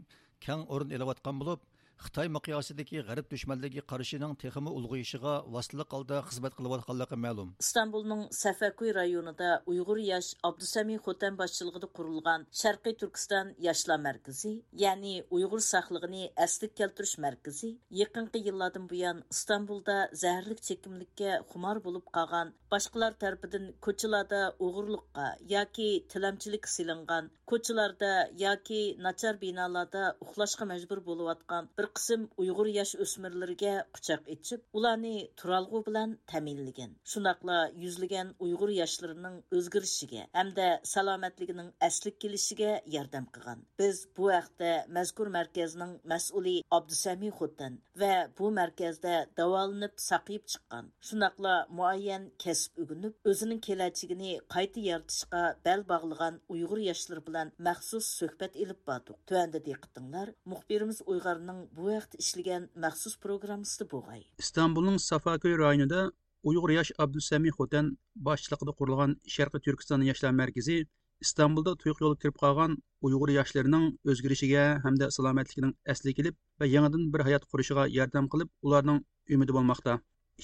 كەڭ ئورۇن ئېلىۋاتقان بولۇپ، خىتاي مىقياسىدىكى غەرب دۈشمەنلىكىگە قارشىنىڭ تېخىمۇ ئۇلغىيىشىغا ۋاسىتىلىك ھالدا خىزمەت قىلىۋاتقانلىقى مەلۇم. ئىستانبۇلنىڭ سەفەكوي رايونىدا ئۇيغۇر ياش ئابدۇسەمى خوتەن باشچىلىقىدا قۇرۇلغان شەرقىي تۈركىستان ياشلار مەركىزى، يەنى ئۇيغۇر ساقلىقىنى ئەسلىگە كەلتۈرۈش مەركىزى، يېقىنقى يىللاردىن بۇيان ئىستانبۇلدا زەھەرلىك چېكىملىككە خۇمار بولۇپ قالغان، باشقىلار تەرىپىدىن كوچىلاردا ئوغرىلىققا ياكى تىلەمچىلىككە سېلىنغان، كوچىلاردا ياكى ناچار بىنالاردا ئۇخلاشقا مەجبۇر بولۇۋاتقان بىر قىسىم ئۇيغۇر ياش ئۆسمۈرلىرىگە قۇچاق ئېچىپ، ئۇلارنى تۇرالغۇ بىلەن تەمىنلىگەن. شۇنداقلا يۈزلىگەن ئۇيغۇر ياشلىرىنىڭ ئۆزگىرىشىگە ھەمدە سالامەتلىكىنىڭ ئەسلىگە كېلىشىگە ياردەم قىلغان. بىز بۇ ھەقتە مەزكۇر مەركەزنىڭ مەسئۇلى ئابدۇسەمى خوتەن ۋە بۇ مەركەزدە داۋالىنىپ ساقىيىپ چىققان، شۇنداقلا مۇئەييەن كەسىپ ئۆگىنىپ، ئۆزىنىڭ كېلەچىكىنى قايتا يارىتىشقا بەل باغلىغان ئۇيغۇر ياشلىرى بىلەن مەخسۇس سۆھبەت ئېلىپ باردۇق. تۆۋەندە دىققىتىڭلار مۇخبىرىمىز ئۇيغارنىڭ بۇ ھەقتە ئىشلىگەن مەخسۇس پروگراممىسىدا بولغاي. ئىستانبۇلنىڭ سافاكۆي رايونىدا ئۇيغۇر ياش ئابدۇسەمى خوتەن باشچىلىقىدا قۇرۇلغان شەرقىي تۈركىستان ياشلار مەركىزى ئىستانبۇلدا تۇيۇق يولغا كىرىپ قالغان ئۇيغۇر ياشلىرىنىڭ ئۆزگىرىشىگە ھەمدە سالامەتلىكىنىڭ ئەسلىگە كېلىپ ۋە يېڭىدىن بىر ھايات قۇرۇشىغا ياردەم قىلىپ، ئۇلارنىڭ ئۈمىدى بولماقتا.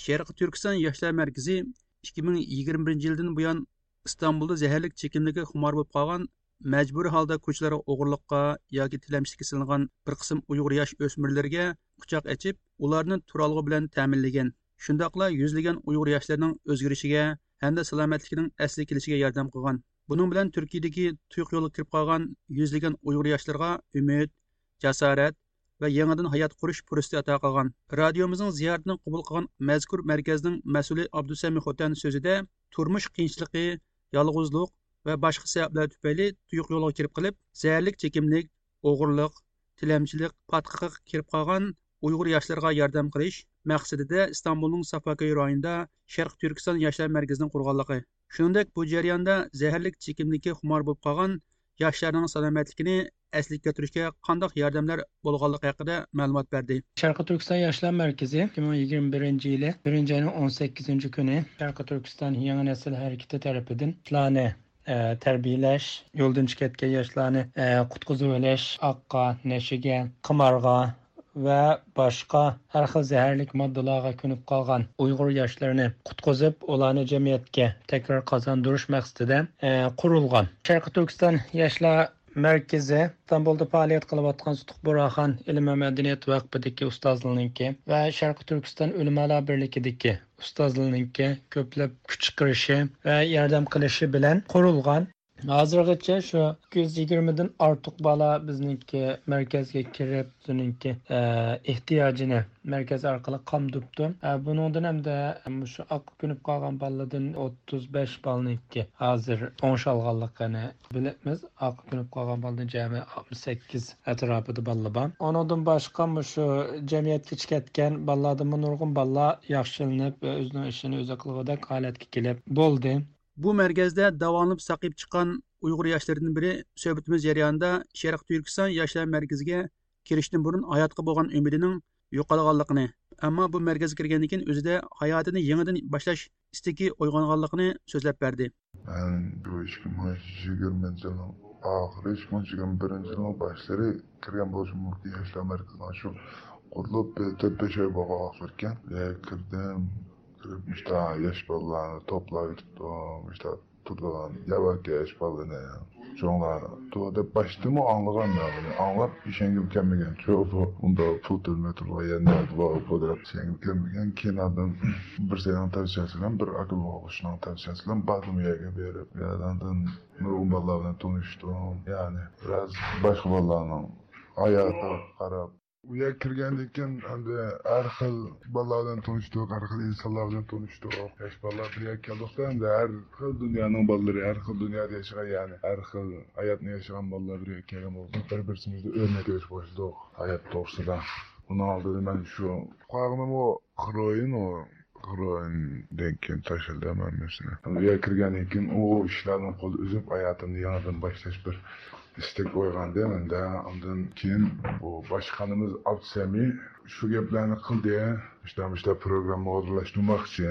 شەرقىي تۈركىستان ياشلار مەركىزى ئىككى مىڭ يىگىرمە بىرىنچى يىلدىن بۇيان ئىستانبۇلدا زەھەرلىك چېكىملىككە خۇمار بولۇپ قالغان، مەجبۇرىي ھالدا كوچىلارغا ئوغرىلىققا ياكى تىلەمچىلىككە سېلىنغان بىر قىسىم ئۇيغۇر ياش ئۆسمۈرلىرىگە قۇچاق ئېچىپ، ئۇلارنى تۇرالغۇ بىلەن تەمىنلىگەن. شۇنداقلا يۈزلىگەن ئۇيغۇر ياشلىرىنىڭ ئۆزگىرىشىگە ھەمدە سالامەتلىكىنىڭ ئەسلىگە كېلىشىگە ياردەم قىلغان. بۇنىڭ بىلەن تۈركىيەدىكى تۇيۇق يولغا كىرىپ قالغان يۈزلىگەن ئۇيغۇر ياشلىرىغا ئۈمىد، جاسارەت ۋە يېڭىدىن ھايات قۇرۇش پۇرسىتى ئاتا قىلغان. رادىيومىزنىڭ زىيارىتىنى قوبۇل قىلغان مەزكۇر مەركەزنىڭ مەسئۇلى ئابدۇسەمى خوتەن سۆزىدە، تۇرمۇش قىيىنچىلىقى، يالغۇزلۇق ۋە باشقا سەۋەبلەر تۈپەيلى تۇيۇق يولغا كىرىپ قېلىپ، زەھەرلىك چېكىملىك، ئوغرىلىق، تىلەمچىلىك پاتقىقىغا كىرىپ قالغان ئۇيغۇر ياشلىرىغا ياردەم قىلىش مەقسىتىدە ئىستانبۇلنىڭ سافاكۆي رايونىدا شەرقىي تۈركىستان ياشلار مەركىزىنى قۇرغانلىقى، شۇنىڭدەك بۇ جەرياندا زەھەرلىك چېكىملىككە خۇمار بولۇپ قالغان ياشلارنىڭ سالامەتلىكىنى ئەسلىگە كەلتۈرۈشكە قانداق ياردەملەر بولغانلىقى ھەققىدە مەلۇمات بەردى. شەرقىي تۈركىستان ياشلار مەركىزى ئىككى مىڭ يىگىرمە بىرىنچى يىلى بىرىنچى ئاينىڭ ئون سەككىزىنچى كۈنى شەرقىي تۈركىستان يېڭى نەسىل ھەرىكىتى تەرىپىدىن ياشلارنى، ئە، تەربىيەلەش، يولدىن چىقىۋەتكەن ياشلارنى، ئە، قۇتقۇزۇۋېلىش، ئاققا، نەشىگە، قىمارغا ۋە باشقا ھەر خىل زەھەرلىك ماددىلارغا كۆنۈپ قالغان ئۇيغۇر ياشلىرىنى قۇتقۇزۇپ، ئۇلارنى جەمئىيەتكە تەكرار قازاندۇرۇش مەقسىتىدە، ئە، قۇرۇلغان. شەرقىي تۈركىستان ياشلار مەركىزى ئىستانبۇلدا پائالىيەت قىلىۋاتقان سۇتۇق بۇرھان ئىلىم ۋە مەدەنىيەت ۋەقپىدىكى ئۇستازلىرىنىڭكى ۋە شەرقىي تۈركىستان ئۆلىمالار بىرلىكىدىكى ئۇستازلىرىنىڭكى كۆپلەپ كۈچ چىقىرىشى ۋە ياردەم قىلىشى بىلەن قۇرۇلغان. ھازىرغىچە شۇ ئىككى يۈز يىگىرمىدىن ئارتۇق بالا بىزنىڭكى مەركەزگە كىرىپ، ئۆزىنىڭكى، ئە، ئېھتىياجىنى مەركەز ئارقىلىق قامدۇپتۇ. ئە، بۇنىڭدىن ھەمدە مۇشۇ ئاققا كۆنۈپ قالغان بالىدىن ئوتتۇز بەش بالىنىڭكى ھازىر ئوڭشالغانلىقىنى بىلىمىز. ئاققا كۆنۈپ قالغان بالىدىن جەمئىي ئاتمىش سەككىز ئەتراپىدا بالىلار بار. ئۇنىڭدىن باشقا مۇشۇ جەمئىيەتكە چىقىۋەتكەن بالىلاردىنمۇ نۇرغۇن بالىلار ياخشىلىنىپ، ئۆزىنىڭ ئىشىنى ئۆزى قىلغۇدەك ھالەتكە كېلىپ بولدى. بۇ مەركەزدە داۋالىنىپ ساقىيىپ چىققان ئۇيغۇر ياشلىرىدىن بىرى سۆھبىتىمىز جەريانىدا شەرقىي تۈركىستان ياشلار مەركىزىگە كىرىشتىن بۇرۇن ھاياتقا بولغان ئۈمىدىنىڭ يوقالغانلىقىنى، ئەمما بۇ مەركەزگە كىرگەندىن كېيىن ئۆزىدە ھاياتىنى يېڭىدىن باشلاش ئىستىكى ئويغانغانلىقىنى سۆزلەپ بەردى. مەن بۇ ئىككى مىڭ يىگىرمىنچى يىلنىڭ ئاخىرى، ئىككى مىڭ يىگىرمە بىرىنچى يىلنىڭ باشلىرى كىرگەن بولۇشۇم مۇمكىن. ياشلار مەركىزىنىڭ شۇ قۇرۇلۇپ بىر تۆت بەش ئاي بولغان ۋاقىت ئىكەن. يا كىردىم، كىرىپ مۇشۇنداق ياش بالىلارنى توپلاۋېتىپتۇ، مۇشۇنداق تۇرىدىغان ياۋاكى ياش بالىنى چوڭلار تۇر دەپ باشتىمۇ ئاڭلىغان مەن بۇنى. ئاڭلاپ ئىشەنگۈم كەلمىگەن. چۇ بۇ ئۇنداق پۇل تۆلىمەي تۇرىدىغان يەر نەدە بار بۇ دەپ ئىشەنگۈم كەلمىگەن. كېيىن ئاندىن بىرسىنىڭ تەۋسىيەسى بىلەن، بىر ئاكا بوغۇچىنىڭ تەۋسىيەسى بىلەن باردىم ئۇ يەرگە بېرىپ. يەردىن نۇرغۇن بالىلار بىلەن تونۇشتۇم. يەنى بىراز باشقا بالىلارنىڭ ھاياتىغا قاراپ، ئۇ يەرگە كىرگەندىن كېيىن ئەمدى ھەر خىل بالىلار بىلەن تونۇشتۇق، ھەر خىل ئىنسانلار بىلەن تونۇشتۇق. ياش بالىلار بىر يەرگە كەلدۇقتا، ئەمدى ھەر خىل دۇنيانىڭ بالىلىرى، ھەر خىل دۇنيادا ياشىغان، يەنى ھەر خىل ھاياتنى ياشىغان بالىلار بىر يەرگە كەلگەن بولدۇق. بىر-بىرسىمىزدىن ئۆرنەك ئېلىشقا باشلىدۇق ھايات توغرىسىدا. ئۇنىڭ ئالدىدا مەن شۇ قارىغىنىمۇ خروئىن، ئۇ خروئىندىن كېيىن تاشلىدىم ھەممىسىنى. ئۇ يەرگە كىرگەندىن كېيىن ئۇ ئىشلاردىن قول ئۈزۈپ، ھاياتىمنى يېڭىدىن باشلاش بىر ئىستەك ئويغاندى مەندە. ئاندىن كېيىن بۇ باشقانىمىز ئابدۇسەمى شۇ گەپلەرنى قىلدى. مۇشۇنداق، مۇشۇنداق پروگرامما ئورۇنلاشتۇرماقچى.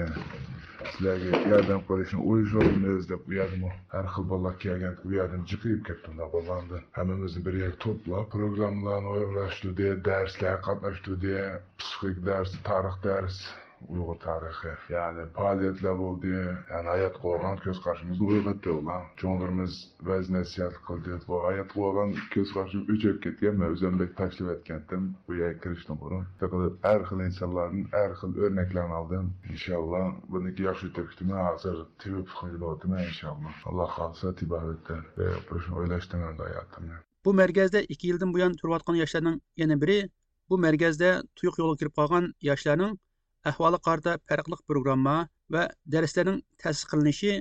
سىلەرگە ياردەم قىلىشنى ئويلىشىۋاتىمىز دەپ، ئۇ يەردىمۇ ھەر خىل بالىلار كەلگەن، ئۇ يەردىن جىقىيىپ كەتتىم. بالىلارنى ھەممىمىزنى بىر يەرگە توپلاپ، پروگراممىلارنى ئورۇنلاشتۇردى، دەرسلەرگە قاتناشتۇردى. پسىخىك دەرس، تارىخ دەرس، ئۇيغۇر تارىخى. يەنى پائالىيەتلەر بولدى. يەنى ھاياتقا بولغان كۆز قارىشىمىزنى ئويغاتتى ئۇلار. چوڭلىرىمىز ۋەز نەسىھەت قىلدى. بۇ ھاياتقا بولغان كۆز قارىشىم ئۆچۈپ كەتكەن. مەن ئۆزۈم بەك تاشلىۋەتكەنتىم بۇ يەرگە كىرىشتىن بۇرۇن. شۇنداق قىلىپ ھەر خىل ئىنسانلاردىن ھەر خىل ئۆرنەكلەرنى ئالدىم. ئىنشاللا بۇنىڭكى ياخشى ئۆتۈپ كېتىمەن. ھازىر تېبىپ خىجىل ئولتۇرىمەن ئىنشاللا. ئاللا خالىسا تېبابەتتە بىر قۇرۇشنى ئويلاشتىم ئەمدى ھاياتىمنى. بۇ مەركەزدە ئىككى يىلدىن بۇيان تۇرۇۋاتقان ياشلارنىڭ يەنە بىرى، بۇ مەركەزدە تۇيۇق يولغا كىرىپ قالغان ياشلارنىڭ ئەھۋالىغا قارىتا پەرقلىق پروگرامما ۋە دەرسلەرنىڭ تەسىس قىلىنىشى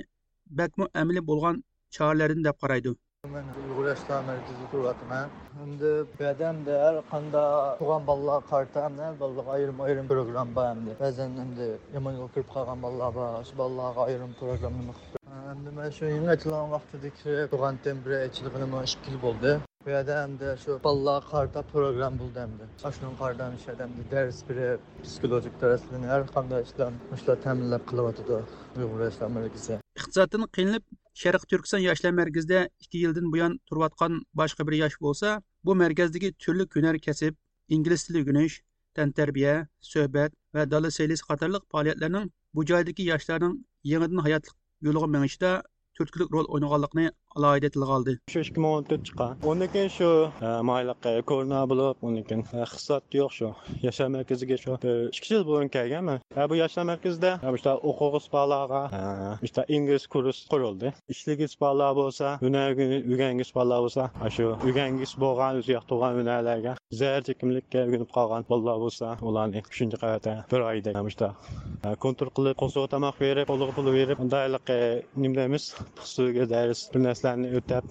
بەكمۇ ئەمەلىي بولغان چارىلەردىن دەپ قارايدۇ. مەن ئۇيغۇر ياشلار مەركىزىدە تۇرۇۋاتىمەن. ئەمدى بۇ يەردە ئەمدى ھەر قانداق تۇغان بالىلارغا قارىتا ئەمدى ھەر بالىغا ئايرىم ئايرىم پروگرامما بار. ئەمدى بەزەن ئەمدى يامان يولغا كىرىپ قالغان بالىلار بار. شۇ بالىلارغا ئايرىم پروگرامما قىلىپ، ئەمدى مەن شۇ يېڭى ئېچىلغان ۋاقتىدىن كىرىپ تۇرغانتىم، بىر ئېچىلغىنىمۇ ئىككى يىل بولدى. بۇ يەردە ئەمدى شۇ بالىلارغا قارىتا پروگرامما بولدى ئەمدى. ئاشۇنىڭغا قارىتا مۇشۇ يەردە ئەمدى دەرس بېرىپ، پسىخولوگىك دەرسلەرنى ھەر قانداق ئىشلار مۇشۇلار تەمىنلەپ قىلىۋاتىدۇ ئۇيغۇر ياشلار مەركىزى. ئىقتىسادتىن قىينىلىپ، شەرقىي تۈركىستان ياشلار مەركىزىدە ئىككى يىلدىن بۇيان تۇرۇۋاتقان باشقا بىر ياش بولسا، بۇ مەركەزدىكى تۈرلۈك ھۈنەر كەسىپ، ئىنگلىز تىلى ئۆگىنىش، تەنتەربىيە، سۆھبەت ۋە دالا سەيلىسى قاتارلىق پائالىيەتلەرنىڭ بۇ جايدىكى ياشلارنىڭ يېڭىدىن ھاياتلىق يولىغا مېڭىشىدا تۈرتكىلىك رول ئوينىغانلىقىنى ئالاھىدە تىلغا ئالدى. شۇ ئىككى مىڭ ئون تۆت چىققان. ئۇندىن كېيىن شۇ، ئە، مايلىق، ئە، كورونا بولۇپ، ئۇندىن كېيىن، ئە، ئىقتىساد يوق شۇ. ياشلار مەركىزىگە شۇ بىر ئىككى يىل بۇرۇن كەلگەنمەن. ئە، بۇ ياشلار مەركىزىدە، ئە، مۇشۇنداق ئوقۇغۇسى بارلارغا، ئە، مۇشۇنداق ئىنگلىز كۇرس قۇرۇلدى. ئىشلىگۈسى بارلار بولسا، ھۈنەر ئۆگەنگۈسى بارلار بولسا، ئاشۇ ئۆگەنگۈسى بولغان، ئۆزى ياقتۇرغان ھۈنەرلەرگە زەھەر چېكىملىككە ئۆگىنىپ قالغان بالىلار بولسا، ئۇلارنى ئۈچىنچى قەۋەتتە بىر ئايدەك مۇشۇنداق، ئە، كونترول قىلىپ، قورسىغا تاماق بېرىپ، قولىغا پۇل بېرىپ، مۇنداق ھېلىقى نېمە دەيمىز، ئۇسسۇلىگە دەرس، بىر نەرسىلەرنى ئۆتەپ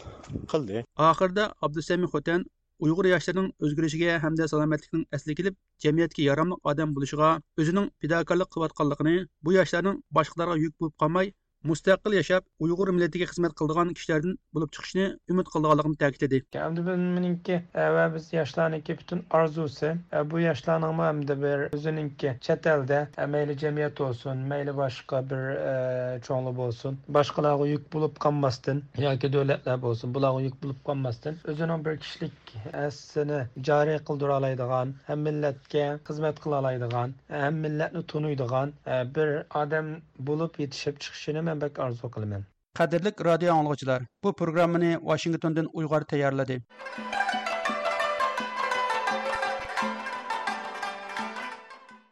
قىلدى. ئاخىرىدا ئابدۇسەمى خوتەن ئۇيغۇر ياشلىرىنىڭ ئۆزگىرىشىگە ھەمدە سالامەتلىكنىڭ ئەسلىگە كېلىپ، جەمئىيەتكە ياراملىق ئادەم بولۇشىغا ئۆزىنىڭ پىداكارلىق قىلىۋاتقانلىقىنى، بۇ ياشلارنىڭ باشقىلارغا يۈك بولۇپ قالماي، مۇستەقىل ياشاپ، ئۇيغۇر مىللىتىگە خىزمەت قىلىدىغان كىشىلەردىن بولۇپ چىقىشىنى ئۈمىد قىلىدىغانلىقىنى تەكىتلىدى. ئەمدى بۇ مېنىڭكى، ئە، ۋە بىز ياشلارنىڭكى پۈتۈن ئارزۇسى، ئە، بۇ ياشلارنىڭمۇ ئەمدى بىر ئۆزىنىڭكى چەت ئەلدە، ئە، مەيلى جەمئىيەت بولسۇن، مەيلى باشقا بىر، ئە، چوڭلار بولسۇن، باشقىلارغا يۈك بولۇپ قالماستىن ياكى دۆلەتلەر بولسۇن، بۇلارغا يۈك بولۇپ قالماستىن، ئۆزىنىڭ بىر كىشىلىك ھەسسىنى جارى قىلدۇرالايدىغان، ھەم مىللەتكە خىزمەت قىلالايدىغان، ھەم مىللەتنى تونۇيدىغان، ئە، بىر ئادەم بولۇپ يېتىشىپ چىقىشىنى مەن بەك ئارزۇ قىلىمەن. قەدىرلىك رادىيو ئاڭلىغۇچىلار، بۇ پروگراممىنى ۋاشىنگتوندىن ئۇيغۇر تەييارلىدى.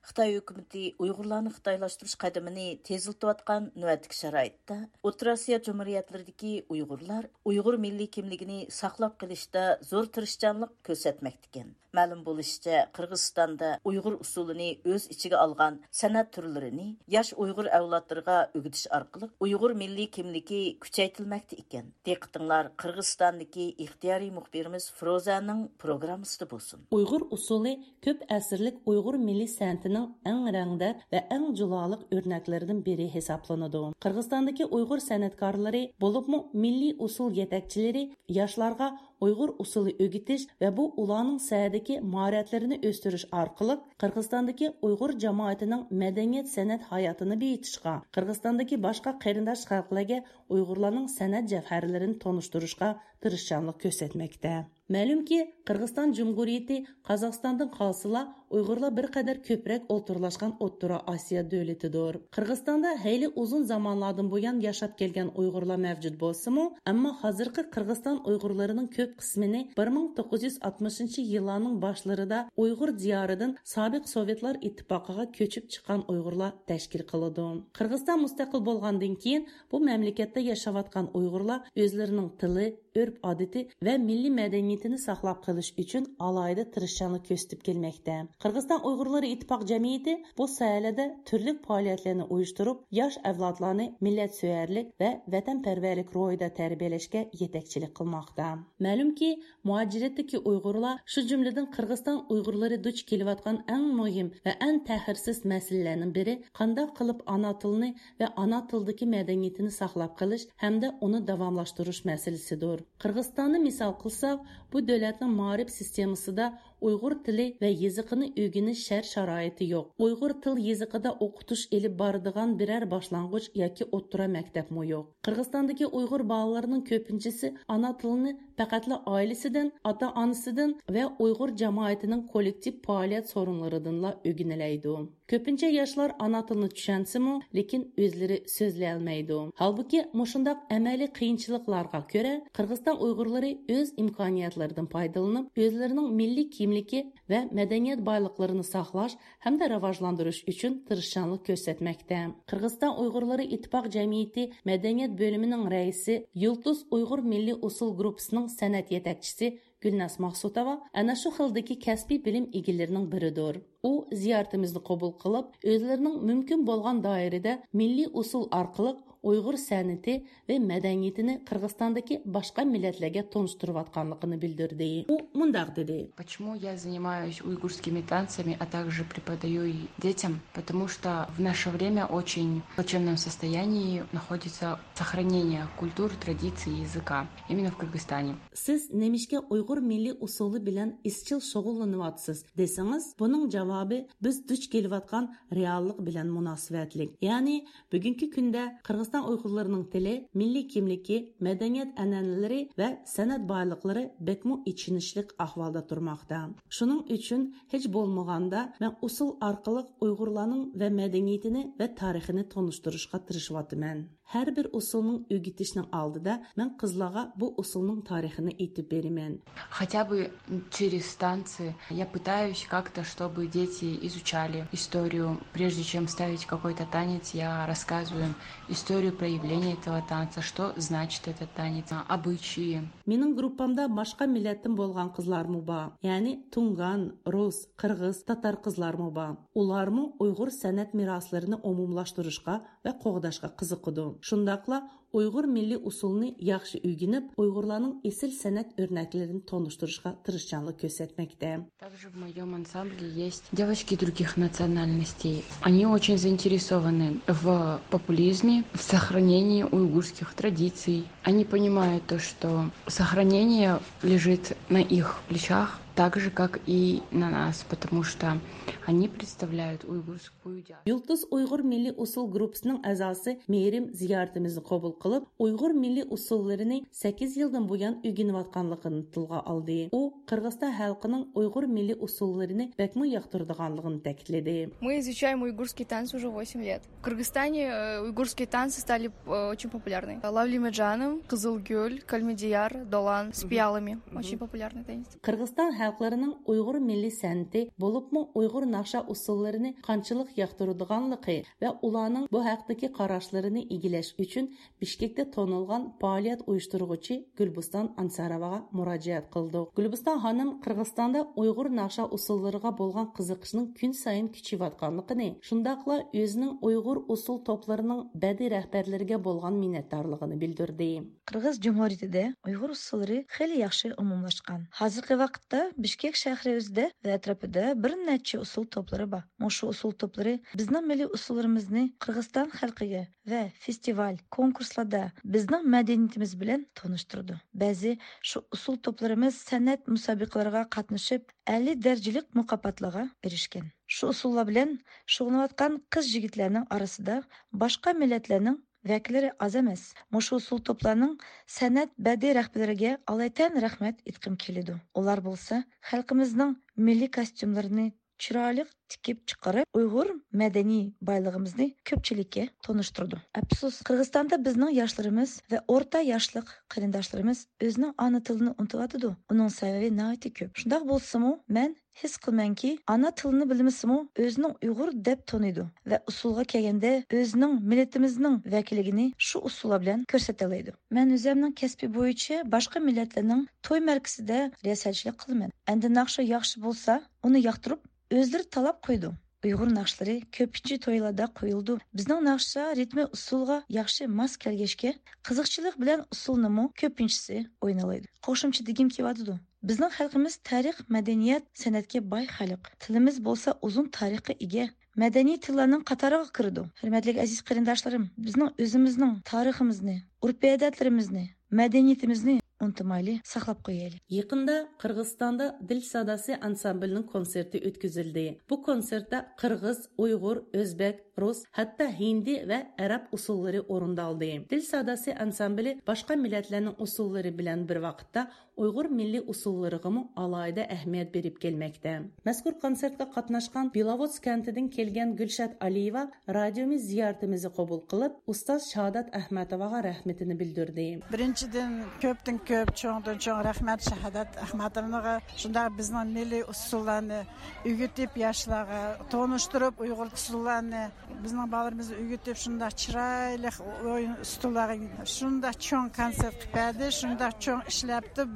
خىتاي ھۆكۈمىتى ئۇيغۇرلارنى خىتايلاشتۇرۇش قەدىمىنى تېزلىتىۋاتقان نۆۋەتتىكى شارائىتتا، ئوتتۇرا ئاسىيا جۇمھۇرىيەتلىرىدىكى ئۇيغۇرلار ئۇيغۇر مىللىي كىملىكىنى ساقلاپ قېلىشتا زور تىرىشچانلىق كۆرسەتمەكتىكەن. مەلۇم بولۇشىچە، قىرغىزىستاندا ئۇيغۇر ئۇسسۇلىنى ئۆز ئىچىگە ئالغان سەنئەت تۈرلىرىنى ياش ئۇيغۇر ئەۋلادلىرىغا ئۆگىتىش ئارقىلىق ئۇيغۇر مىللىي كىملىكى كۈچەيتىلمەكتە ئىكەن. دىققىتىڭلار قىرغىزىستاندىكى ئىختىيارىي مۇخبىرىمىز فروزەنىڭ پروگراممىسىدا بولسۇن. ئۇيغۇر ئۇسسۇلى كۆپ ئەسىرلىك ئۇيغۇر مىللىي سەنئىتىنىڭ ئەڭ رەڭدار ۋە ئەڭ جۇلالىق ئۆرنەكلىرىدىن بىرى ھېسابلىنىدۇ. قىرغىزىستاندىكى ئۇيغۇر سەنئەتكارلىرى، بولۇپمۇ مىللىي ئۇسسۇل يېتەكچىلىرى ياشلارغا ئۇيغۇر ئۇسسۇلى ئۆگىتىش ۋە بۇ ئۇلارنىڭ سەھنىدىكى ماھارەتلىرىنى ئۆستۈرۈش ئارقىلىق قىرغىزىستاندىكى ئۇيغۇر جامائىتىنىڭ مەدەنىيەت سەنئەت ھاياتىنى بېيىتىشقا، قىرغىزىستاندىكى باشقا قېرىنداش خەلقلەرگە ئۇيغۇرلارنىڭ سەنئەت جەۋھەرلىرىنى تونۇشتۇرۇشقا تىرىشچانلىق كۆرسەتمەكتە. مەلۇمكى، قىرغىزىستان جۇمھۇرىيىتى قازاقىستاندىن قالسىلا، ئۇيغۇرلار بىر قەدەر كۆپرەك ئولتۇرلاشقان ئوتتۇرا ئاسىيا دۆلىتىدۇر. قىرغىزىستاندا ھەيلى ئۇزۇن زامانلاردىن بۇيان ياشاپ كەلگەن ئۇيغۇرلار مەۋجۇت بولسىمۇ، ئەمما ھازىرقى قىرغىزىستان ئۇيغۇرلىرىنىڭ كۆپ قىسمىنى بىر مىڭ توققۇز يۈز ئاتمىشىنچى يىللارنىڭ باشلىرىدا ئۇيغۇر دىيارىدىن سابىق سوۋېتلار ئىتتىپاقىغا كۆچۈپ چىققان ئۇيغۇرلار تەشكىل قىلىدۇ. قىرغىزىستان مۇستەقىل بولغاندىن كېيىن، بۇ مەملىكەتتە ياشاۋاتقان ئۇيغۇرلار ئۆزلىرىنىڭ تىلى، ئۆرپ-ئادىتى ۋە مىللىي مەدەنىيىتىنى ساقلاپ قېلىش ئۈچۈن ئالاھىدە تىرىشچانلىق كۆرسىتىپ كەلمەكتە. قىرغىزىستان ئۇيغۇرلىرى ئىتتىپاق جەمئىيىتى بۇ ساھەلەردە تۈرلۈك پائالىيەتلەرنى ئۇيۇشتۇرۇپ، ياش ئەۋلادلارنى مىللەتسۆيەرلىك ۋە ۋەتەنپەرۋەرلىك روھىدا تەربىيەلەشكە يېتەكچىلىك قىلماقتا. مەلۇمكى، مۇھاجىرەتتىكى ئۇيغۇرلار، شۇ جۈملىدىن قىرغىزىستان ئۇيغۇرلىرى دۇچ كېلىۋاتقان ئەڭ مۇھىم ۋە ئەڭ تەخىرسىز مەسىلىلەرنىڭ بىرى، قانداق قىلىپ ئانا تىلنى ۋە ئانا تىلدىكى مەدەنىيىتىنى ساقلاپ قېلىش ھەمدە ئۇنى داۋاملاشتۇرۇش مەسىلىسىدۇر. قىرغىزىستاننى مىسال قىلساق، بۇ دۆلەتنىڭ مائارىپ سىستېمىسىدا ئۇيغۇر تىلى ۋە يېزىقىنى ئۆگىنىش شەرت-شارائىتى يوق. ئۇيغۇر تىل يېزىقىدا ئوقۇتۇش ئېلىپ بارىدىغان بىرەر باشلانغۇچ ياكى ئوتتۇرا مەكتەپمۇ يوق. قىرغىزىستاندىكى ئۇيغۇر بالىلىرىنىڭ كۆپىنچىسى ئانا تىلىنى پەقەتلا ئائىلىسىدىن، ئاتا-ئانىسىدىن ۋە ئۇيغۇر جامائىتىنىڭ كوللېكتىپ پائالىيەت سورۇنلىرىدىنلا ئۆگىنەلەيدۇ. كۆپىنچە ياشلار ئانا تىلىنى چۈشەنسىمۇ، لېكىن ئۆزلىرى سۆزلىيەلمەيدۇ. ھالبۇكى، مۇشۇنداق ئەمەلىي قىيىنچىلىقلارغا كۆرە، قىرغىزىستان ئۇيغۇرلىرى ئۆز ئىمكانىيەتلىرىدىن پايدىلىنىپ، ئۆزلىرىنىڭ مىللىي كىملىكى ۋە مەدەنىيەت بايلىقلىرىنى ساقلاش ھەمدە راۋاجلاندۇرۇش ئۈچۈن تىرىشچانلىق كۆرسەتمەكتە. قىرغىزىستان ئۇيغۇرلىرى ئىتتىپاق جەمئىيىتى مەدەنىيەت بۆلۈمىنىڭ رەئىسى، يۇلتۇز ئۇيغۇر مىللىي ئۇسسۇل گۇرۇپپىسىنىڭ سەنئەت يېتەكچىسى گۈلناز ماقسۇتوۋا ئەنە شۇ خىلدىكى كەسپىي بىلىم ئىگىلىرىنىڭ بىرىدۇر. ئۇ زىيارىتىمىزنى قوبۇل قىلىپ، ئۆزلىرىنىڭ مۇمكىن بولغان دائىرىدە مىللىي ئۇسسۇل ئارقىلىق ئۇيغۇر سەنئىتى ۋە مەدەنىيىتىنى قىرغىزىستاندىكى باشقا مىللەتلەرگە تونۇشتۇرۇۋاتقانلىقىنى بىلدۈردى. ئۇ مۇنداق دېدى. Почему я занимаюсь уйгурскими танцами, а также преподаю и детям? Потому что в наше время очень в плачевном состоянии находится сохранение культуры, традиций и языка именно в Кыргызстане. سىز نېمىشقا ئۇيغۇر مىللىي ئۇسسۇلى بىلەن ئىزچىل شۇغۇللىنىۋاتىسىز دېسىڭىز، بۇنىڭ جاۋابى بىز دۇچ كېلىۋاتقان رېئاللىق بىلەن مۇناسىۋەتلىك. يەنى بۈگۈنكى كۈندە قىرغىزىستان ئۇيغۇرلىرىنىڭ تىلى، مىللىي كىملىكى، مەدەنىيەت ئەنئەنىلىرى ۋە سەنئەت بايلىقلىرى بەكمۇ ئېچىنىشلىق ئەھۋالدا تۇرماقتا. شۇنىڭ ئۈچۈن ھېچ بولمىغاندا مەن ئۇسسۇل ئارقىلىق ئۇيغۇرلارنىڭ ۋە مەدەنىيىتىنى ۋە تارىخىنى تونۇشتۇرۇشقا تىرىشىۋاتىمەن. ھەر بىر ئۇسسۇلنىڭ ئۆگىتىشنىڭ ئالدىدا مەن قىزلارغا بۇ ئۇسسۇلنىڭ تارىخىنى ئېيتىپ بېرىمەن. Хотя бы через танцы я пытаюсь как-то, чтобы дети изучали историю. Прежде чем ставить какой-то танец, я рассказываю им историю проявления этого танца, что значит этот танец, обычаи. مېنىڭ گۇرۇپپامدا باشقا مىللەتتىن بولغان قىزلارمۇ بار، يەنى تۇڭگان، رۇس، قىرغىز، تاتار قىزلارمۇ بار. ئۇلارمۇ ئۇيغۇر سەنئەت مىراسلىرىنى ئومۇملاشتۇرۇشقا ۋە قوغداشقا قىزىقىدۇ. شۇنداقلا ئۇيغۇر مىللىي ئۇسسۇلىنى ياخشى ئۆگىنىپ، ئۇيغۇرلارنىڭ ئېسىل سەنئەت ئۆرنەكلىرىنى تونۇشتۇرۇشقا تىرىشچانلىق كۆرسەتمەكتە. Также в моём ансамбле есть девочки других национальностей. Они очень заинтересованы в популизме, в сохранении уйгурских традиций. Они понимают то, что сохранение лежит на их плечах, так же, как и на нас, потому что они представляют уйгурскую диаспору. يۇلتۇز ئۇيغۇر مىللىي ئۇسسۇل گۇرۇپپىسىنىڭ ئەزاسى مېھرىم زىيارىتىمىزنى قوبۇل قىلىپ، ئۇيغۇر مىللىي ئۇسسۇللىرىنى سەككىز يىلدىن بۇيان ئۆگىنىۋاتقانلىقىنى تىلغا ئالدى. ئۇ قىرغىزىستان خەلقىنىڭ ئۇيغۇر مىللىي ئۇسسۇللىرىنى بەكمۇ ياقتۇرىدىغانلىقىنى تەكىتلىدى. Мы изучаем уйгурские танцы уже восемь лет. В Кыргызстане, э, уйгурские танцы стали, э, очень популярны. Лавли Меджаным, Кызылгюль, Калмедияр, Долан с пиалами. Очень популярный танец. قىرغىزىستان خەلقلىرىنىڭ ئۇيغۇر مىللىي سەنئىتى، بولۇپمۇ ئۇيغۇر ناخشا ئۇسسۇللىرىنى قانچىلىك ياقتۇرىدىغانلىقى ۋە ئۇلارنىڭ بۇ ھەقتىكى قاراشلىرىنى ئىگىلەش ئۈچۈن بىشكېكتە تونۇلغان پائالىيەت ئۇيۇشتۇرغۇچى گۈلبۇستان ئانساروۋاغا مۇراجىئەت قىلدۇق. گۈلبۇستان خانىم قىرغىزىستاندا ئۇيغۇر ناخشا ئۇسسۇللىرىغا بولغان قىزىقىشنىڭ كۈنسايىن كۈچىيىۋاتقانلىقىنى، شۇنداقلا ئۆزىنىڭ ئۇيغۇر ئۇسسۇل توپلىرىنىڭ بەدىئىي رەھبەرلىرىگە بولغان مىننەتدارلىقىنى بىلدۈردى. قىرغىز جۇمھۇرىيىتىدە ئۇيغۇر ئۇسسۇللىرى خېلى ياخشى ئومۇملاشقان. ھازىرقى ۋاقىتتا بىشكېك شەھىرى ئۆزىدە ۋە ئەتراپىدا بىر نەچچە ئۇسسۇل توپلىرى بار. مۇشۇ ئۇسسۇل توپلىرى بىزنىڭ مىللىي ئۇسسۇللىرىمىزنى قىرغىزىستان خەلقىگە ۋە فېستىۋال، كونكۇرسلاردا بىزنىڭ مەدەنىيىتىمىز بىلەن تونۇشتۇرىدۇ. بەزى شۇ ئۇسسۇل توپلىرىمىز سەنئەت مۇسابىقىلىرىغا قاتنىشىپ، ئەلى دەرىجىلىك مۇكاپاتلارغا ئېرىشكەن. شۇ ئۇسسۇللار بىلەن شۇغۇللىنىۋاتقان قىز-يىگىتلەرنىڭ ئارىسىدا باشقا مىللەتلەرنىڭ ۋەكىللىرى ئاز ئەمەس. مۇشۇ ئۇسسۇل توپلارنىڭ سەنئەت بەدىئىي رەھبىرىگە ئالايىتەن رەھمەت ئېيتقۇم كېلىدۇ. ئۇلار بولسا خەلقىمىزنىڭ مىللىي كاستيۇملىرىنى چىرايلىق تىكىپ چىقىرىپ، ئۇيغۇر مەدەنىي بايلىقىمىزنى كۆپچىلىككە تونۇشتۇرىدۇ. ئەپسۇس، قىرغىزىستاندا بىزنىڭ ياشلىرىمىز ۋە ئورتا ياشلىق قېرىنداشلىرىمىز ئۆزىنىڭ ئانا تىلىنى ئۇنتۇۋاتىدۇ. ئۇنىڭ سەۋەبى ناھايىتى كۆپ. شۇنداق بولسىمۇ، مەن ھېس قىلىمەنكى، ئانا تىلىنى بىلمىسىمۇ، ئۆزىنىڭ ئۇيغۇر دەپ تونۇيدۇ ۋە ئۇسسۇلغا كەلگەندە، ئۆزىنىڭ مىللىتىمىزنىڭ ۋەكىللىكىنى شۇ ئۇسسۇللار بىلەن كۆرسىتەلەيدۇ. مەن ئۆزۈمنىڭ كەسپى بويىچە باشقا مىللەتلەرنىڭ توي مەرىكىسىدە رىياسەتچىلىك قىلىمەن. ئەمدى ناخشا ياخشى بولسا، ئۇنى ياقتۇرۇپ، ئۆزلىرى تالاپ قويىدۇ. ئۇيغۇر ناخشىلىرى كۆپىنچە تويلاردا قويۇلىدۇ. بىزنىڭ ناخشا رىتمى ئۇسسۇلغا ياخشى ماس كەلگەچكە، قىزىقچىلىق بىلەن ئۇسسۇلنىمۇ كۆپىنچىسى ئوينالايدۇ. قوشۇمچە دېگۈم كېلىۋاتىدۇ. بىزنىڭ خەلقىمىز تارىخ، مەدەنىيەت، سەنئەتكە باي خەلق. تىلىمىز بولسا ئۇزۇن تارىخقا ئىگە. مەدەنىي تىللارنىڭ قاتارىغا كىرىدۇ. ھۆرمەتلىك ئەزىز قېرىنداشلىرىم، بىزنىڭ ئۆزىمىزنىڭ تارىخىمىزنى، ئۆرپ-ئادەتلىرىمىزنى، مەدەنىيىتىمىزنى ئۇنتۇمايلى، ساقلاپ قويايلى. يېقىندا قىرغىزىستاندا دىل ساداسى ئانسامبىلىنىڭ كونسېرتى ئۆتكۈزۈلدى. بۇ كونسېرتتا قىرغىز، ئۇيغۇر، ئۆزبېك، رۇس، ھەتتا ھىندى ۋە ئەرەب ئۇسسۇللىرى ئورۇندالدى. دىل ساداسى ئانسامبىلى باشقا مىللەتلەرنىڭ ئۇسسۇللىرى بىلەن بىر ۋاقىتتا ئۇيغۇر مىللىي ئۇسسۇللىرىغىمۇ ئالاھىدە ئەھمىيەت بېرىپ كەلمەكتە. مەزكۇر كونسېرتقا قاتناشقان بېلاۋوتس كەنتىدىن كەلگەن گۈلشات ئالىيېۋا رادىيومىز زىيارىتىمىزنى قوبۇل قىلىپ، ئۇستاز شاھادات ئەخمەتوۋاغا رەھمىتىنى بىلدۈردى. بىرىنچىدىن، كۆپتىن كۆپ، چوڭدىن چوڭ رەھمەت شاھادات ئەخمەتوۋاغا. شۇنداق بىزنىڭ مىللىي ئۇسسۇللارنى ئۆگىتىپ، ياشلارغا تونۇشتۇرۇپ، ئۇيغۇر ئۇسسۇللارنى بىزنىڭ بالىلىرىمىزنى ئۆگىتىپ، شۇنداق چىرايلىق ئويۇن ئۇسسۇللارغا شۇنداق چوڭ كونسېرت قىلىپ بەردى، شۇنداق چوڭ ئىشلەپتۇ.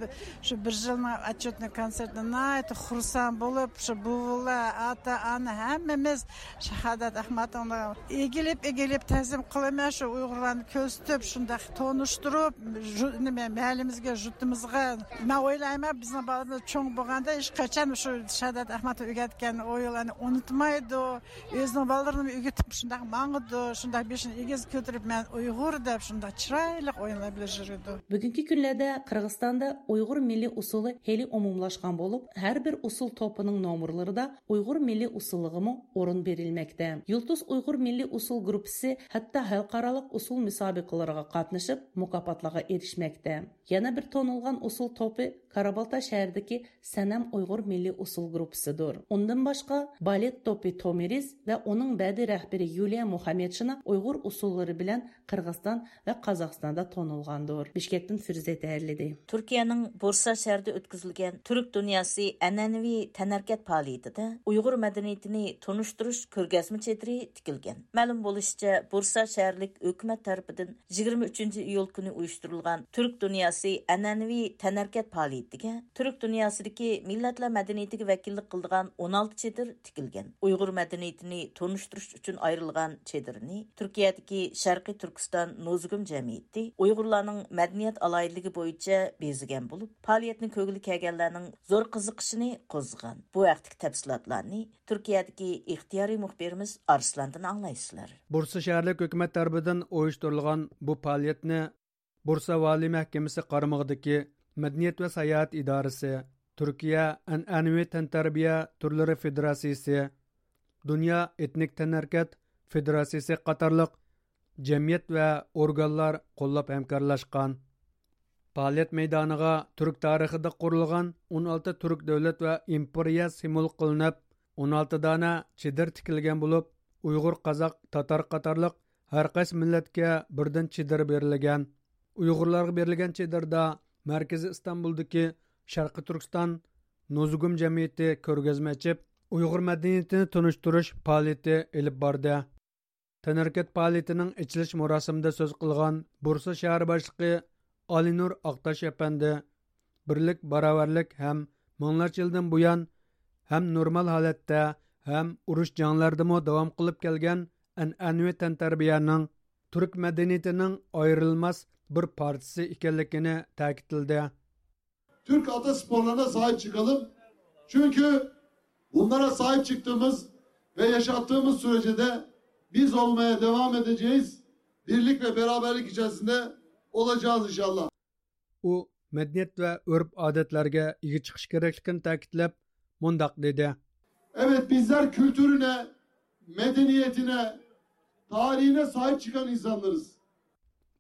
شۇ بىر يىلنىڭ ئەتچوتنى كونسېرتىنى ناھايىتى خۇرسەن بولۇپ، شۇ بوۋىلار، ئاتا، ئانا، ھەممىمىز شاھادات ئەخمەتوۋاغا ئېگىلىپ، ئېگىلىپ تەزىم قىلىمەن. شۇ ئۇيغۇرلارنى كۆرسىتىپ، شۇنداق تونۇشتۇرۇپ، ژۇ-، نېمە، مەھەللىمىزگە، ژۇرتىمىزغا. مەن ئويلايمەن، بىزنىڭ بالىمىز چوڭ بولغاندا ھېچقاچان شۇ شاھادات ئەخمەتوۋا ئۆگەتكەن ئويۇنلارنى ئۇنتۇمايدۇ. ئۆزىنىڭ بالىلىرىنى ئۆگىتىپ شۇنداق ماڭىدۇ، شۇنداق بېشىنى ئېگىز كۆتۈرۈپ، مەن ئۇيغۇر دەپ شۇنداق چىرايلىق ئويۇنلار بىلەن يۈرىدۇ. بۈگۈنكى كۈنلەردە قىرغىزىستاندا ئۇيغۇر مىللىي ئۇسسۇلى خېلى ئومۇملاشقان بولۇپ، ھەر بىر ئۇسسۇل توپىنىڭ نومۇرلىرىدا ئۇيغۇر مىللىي ئۇسسۇلىغىمۇ ئورۇن بېرىلمەكتە. يۇلتۇز ئۇيغۇر مىللىي ئۇسسۇل گۇرۇپپىسى ھەتتا خەلقئارالىق ئۇسسۇل مۇسابىقىلىرىغا قاتنىشىپ، مۇكاپاتلارغا ئېرىشمەكتە. يەنە بىر تونۇلغان ئۇسسۇل توپى كارابالتا شەھىرىدىكى سەنەم ئۇيغۇر مىللىي ئۇسسۇل گۇرۇپپىسىدۇر. ئۇندىن باشقا، بالېت توپى تومىرىز ۋە ئۇنىڭ بەدىي رەھبىرى يۇلىيا مۇھەممەتشىنا ئۇيغۇر ئۇسسۇللىرى بىلەن قىرغىزىستان ۋە قازاقىستاندا تونۇلغاندۇر. بىشكەكتىن فىرۇزە تەييارلىدى. تۈركىيەنىڭ بۇرسا شەھىرىدە ئۆتكۈزۈلگەن تۈرك دۇنياسى ئەنئەنىۋى تەنھەرىكەت پائالىيىتىدە ئۇيغۇر مەدەنىيىتىنى تونۇشتۇرۇش كۆرگەزمە چېدىرى تىكىلگەن. مەلۇم بولۇشىچە، بۇرسا شەھەرلىك ھۆكۈمەت تەرىپىدىن يىگىرمە ئۈچىنچى ئىيۇل كۈنى ئۇيۇشتۇرۇلغان تۈرك دۇنياسى ئەنئەنىۋى تەنھەرىكەت پائالىيىتىگە تۈرك دۇنياسىدىكى مىللەتلەر مەدەنىيىتىگە ۋەكىللىك قىلىدىغان ئون ئالتە چېدىر تىكىلگەن. ئۇيغۇر مەدەنىيىتىنى تونۇشتۇرۇش ئۈچۈن ئايرىلغان چېدىرنى تۈركىيەدىكى شەرقىي تۈركىستان نوزۇگۇم جەمئىيىتى ئۇيغۇرلارنىڭ مەدەنىيەت ئالاھىدىلىكى بويىچە بېزىگەن بولۇپ، پائالىيەتنى كۆرگىلى كەلگەنلەرنىڭ زور قىزىقىشىنى قوزغىغان. بۇ ھەقتىكى تەپسىلاتلارنى تۈركىيەدىكى ئىختىيارىي مۇخبىرىمىز ئارسلاندىن ئاڭلايسىلەر. بۇرسا شەھەرلىك ھۆكۈمەت تەرىپىدىن ئۇيۇشتۇرۇلغان بۇ پائالىيەتنى بۇرسا ۋالىي مەھكىمىسى قارمىقىدىكى مەدەنىيەت ۋە ساياھەت ئىدارىسى، تۈركىيە ئەنئەنىۋى تەنتەربىيە تۈرلىرى فېدېراتسىيىسى، دۇنيا ئېتنىك تەنھەرىكەت فېدېراتسىيىسى قاتارلىق جەمئىيەت ۋە ئورگانلار قوللاپ ھەمكارلاشقان. پائالىيەت مەيدانىغا تۈرك تارىخىدا قۇرۇلغان ئون ئالتە تۈرك دۆلەت ۋە ئىمپېرىيە سىمۋول قىلىنىپ، ئون ئالتە دانە چېدىر تىكىلگەن بولۇپ، ئۇيغۇر، قازاق، تاتار قاتارلىق ھەر قايسى مىللەتكە بىردىن چېدىر بېرىلگەن. ئۇيغۇرلارغا بېرىلگەن چېدىردا مەركىزى ئىستانبۇلدىكى شەرقىي تۈركىستان نوزۇگۇم جەمئىيىتى كۆرگەزمە ئېچىپ، ئۇيغۇر مەدەنىيىتىنى تونۇشتۇرۇش پائالىيىتى ئېلىپ باردى. تەنھەرىكەت پائالىيىتىنىڭ ئېچىلىش مۇراسىمىدا سۆز قىلغان بۇرسا شەھەر باشلىقى ئالىنۇر ئاقتاش ئەپەندى، بىرلىك، باراۋەرلىك ھەم مىڭلارچە يىلدىن بۇيان ھەم نورمال ھالەتتە ھەم ئۇرۇش جەڭلەردىمۇ داۋام قىلىپ كەلگەن ئەنئەنىۋى تەنتەربىيەنىڭ تۈرك مەدەنىيىتىنىڭ ئايرىلماس بىر پارچىسى ئىكەنلىكىنى تەكىتلىدى. Türk ata sporlarına sahip çıkalım. Çünkü bunlara sahip çıktığımız ve yaşattığımız sürece de biz olmaya devam edeceğiz. Birlik ve beraberlik içerisinde olacağız inşallah. ئۇ مەدەنىيەت ۋە ئۆرپ-ئادەتلەرگە ئىگە چىقىش كېرەكلىكىنى تەكىتلەپ، مۇنداق دېدى. Evet, bizler kültürüne, medeniyetine, tarihine sahip çıkan insanlarız.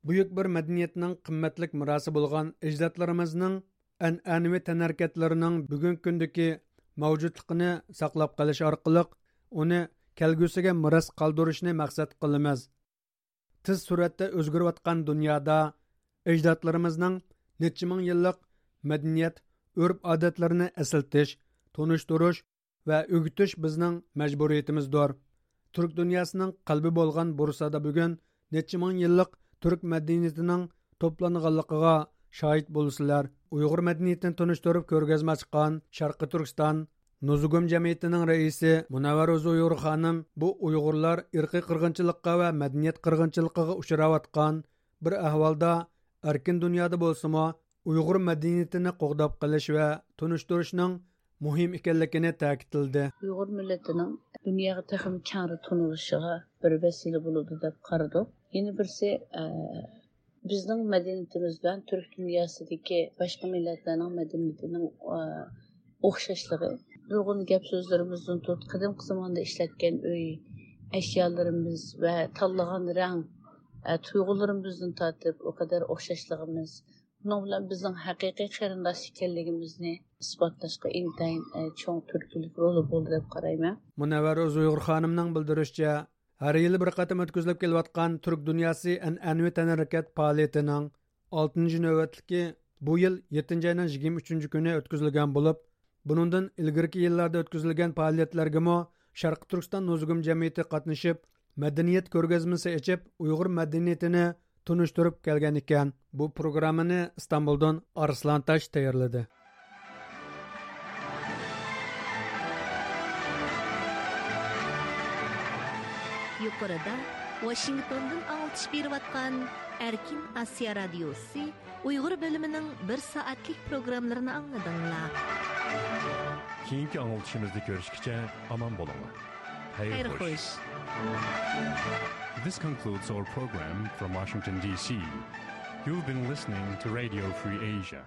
بۈيۈك بىر مەدەنىيەتنىڭ قىممەتلىك مىراسى بولغان ئەجدادلىرىمىزنىڭ ئەنئەنىۋى تەنھەرىكەتلىرىنىڭ بۈگۈنكى كۈندىكى مەۋجۇتلۇقىنى ساقلاپ قېلىش ئارقىلىق، ئۇنى كەلگۈسىگە مىراس قالدۇرۇشنى مەقسەت قىلىمىز. تېز سۈرئەتتە ئۆزگىرىۋاتقان دۇنيادا ئەجدادلىرىمىزنىڭ نەچچە مىڭ يىللىق مەدەنىيەت، ئۆرپ-ئادەتلىرىنى ئەسلىتىش، تونۇشتۇرۇش ۋە ئۆگىتىش بىزنىڭ مەجبۇرىيىتىمىزدۇر. تۈرك دۇنياسىنىڭ قەلبى بولغان بۇرسادا بۈگۈن نەچچە مىڭ يىللىق تۈرك مەدەنىيىتىنىڭ توپلانغانلىقىغا شاھىت بولىسىلەر. ئۇيغۇر مەدەنىيىتىنى تونۇشتۇرۇپ كۆرگەزمە ئاچقان شەرقىي تۈركىستان نوزۇگۇم جەمئىيىتىنىڭ رەئىسى مۇنەۋۋەر ئۇزۇيغۇر خانىم بۇ ئۇيغۇرلار ئىرقىي قىرغىنچىلىققا ۋە مەدەنىيەت قىرغىنچىلىقىغا ئۇچراۋاتقان بىر ئەھۋالدا ئەركىن دۇنيادا بولسىمۇ، ئۇيغۇر مەدەنىيىتىنى قوغداپ قېلىش ۋە تونۇشتۇرۇشنىڭ مۇھىم ئىكەنلىكىنى تەكىتلىدى. ئۇيغۇر مىللىتىنىڭ دۇنياغا تېخىمۇ كەڭرى تونۇلۇشىغا بىر ۋەسىلە بولىدۇ دەپ قارىدۇق. يەنە بىرسى، ئە، بىزنىڭ مەدەنىيىتىمىز بىلەن تۈرك دۇنياسىدىكى باشقا مىللەتلەرنىڭ مەدەنىيىتىنىڭ، ئە، ئوخشاشلىقى. نۇرغۇن گەپ سۆزلىرىمىزدىن تۇت، قەدىمكى زاماندا ئىشلەتكەن ئۆي ئەشيالىرىمىز ۋە تاللىغان رەڭ، ئە، تۇيغۇلىرىمىزدىن تارتىپ ئۇ قەدەر ئوخشاشلىقىمىز، بۇنىڭ بىلەن بىزنىڭ ھەقىقىي قېرىنداش ئىكەنلىكىمىزنى ئىسپاتلاشقا ئىنتايىن، ئە، چوڭ تۈرتكىلىك رولى بولدى دەپ قارايمەن. مۇنەۋۋەر ئۇيغۇر خانىمنىڭ بىلدۈرۈشىچە، ھەر يىلى بىر قېتىم ئۆتكۈزۈلۈپ كېلىۋاتقان تۈرك دۇنياسى ئەنئەنىۋى تەنھەرىكەت پائالىيىتىنىڭ ئالتىنچى نۆۋەتلىكى بۇ يىل يەتتىنچى ئاينىڭ يىگىرمە ئۈچىنچى كۈنى ئۆتكۈزۈلگەن بولۇپ، بۇنىڭدىن ئىلگىرىكى يىللاردا ئۆتكۈزۈلگەن پائالىيەتلەرگىمۇ شەرقىي تۈركىستان نوزۇگۇم جەمئىيىتى قاتنىشىپ، مەدەنىيەت كۆرگەزمىسى ئېچىپ، ئۇيغۇر مەدەنىيىتىنى تونۇشتۇرۇپ كەلگەن ئىكەن. بۇ پروگراممىنى ئىستانبۇلدىن ئارسلان تاش تەييارلىدى. يۇقىرىدا ۋاشىنگتوندىن ئاڭلىتىش بېرىۋاتقان ئەركىن ئاسىيا رادىيوسى ئۇيغۇر بۆلۈمىنىڭ بىر سائەتلىك پروگراممىلىرىنى ئاڭلىدىڭلار. كېيىنكى ئاڭلىتىشىمىزدا كۆرۈشكىچە ئامان بولۇڭلار. خەير خەير خوش. خوش. This concludes our program from Washington, D C. You've been listening to Radio Free Asia.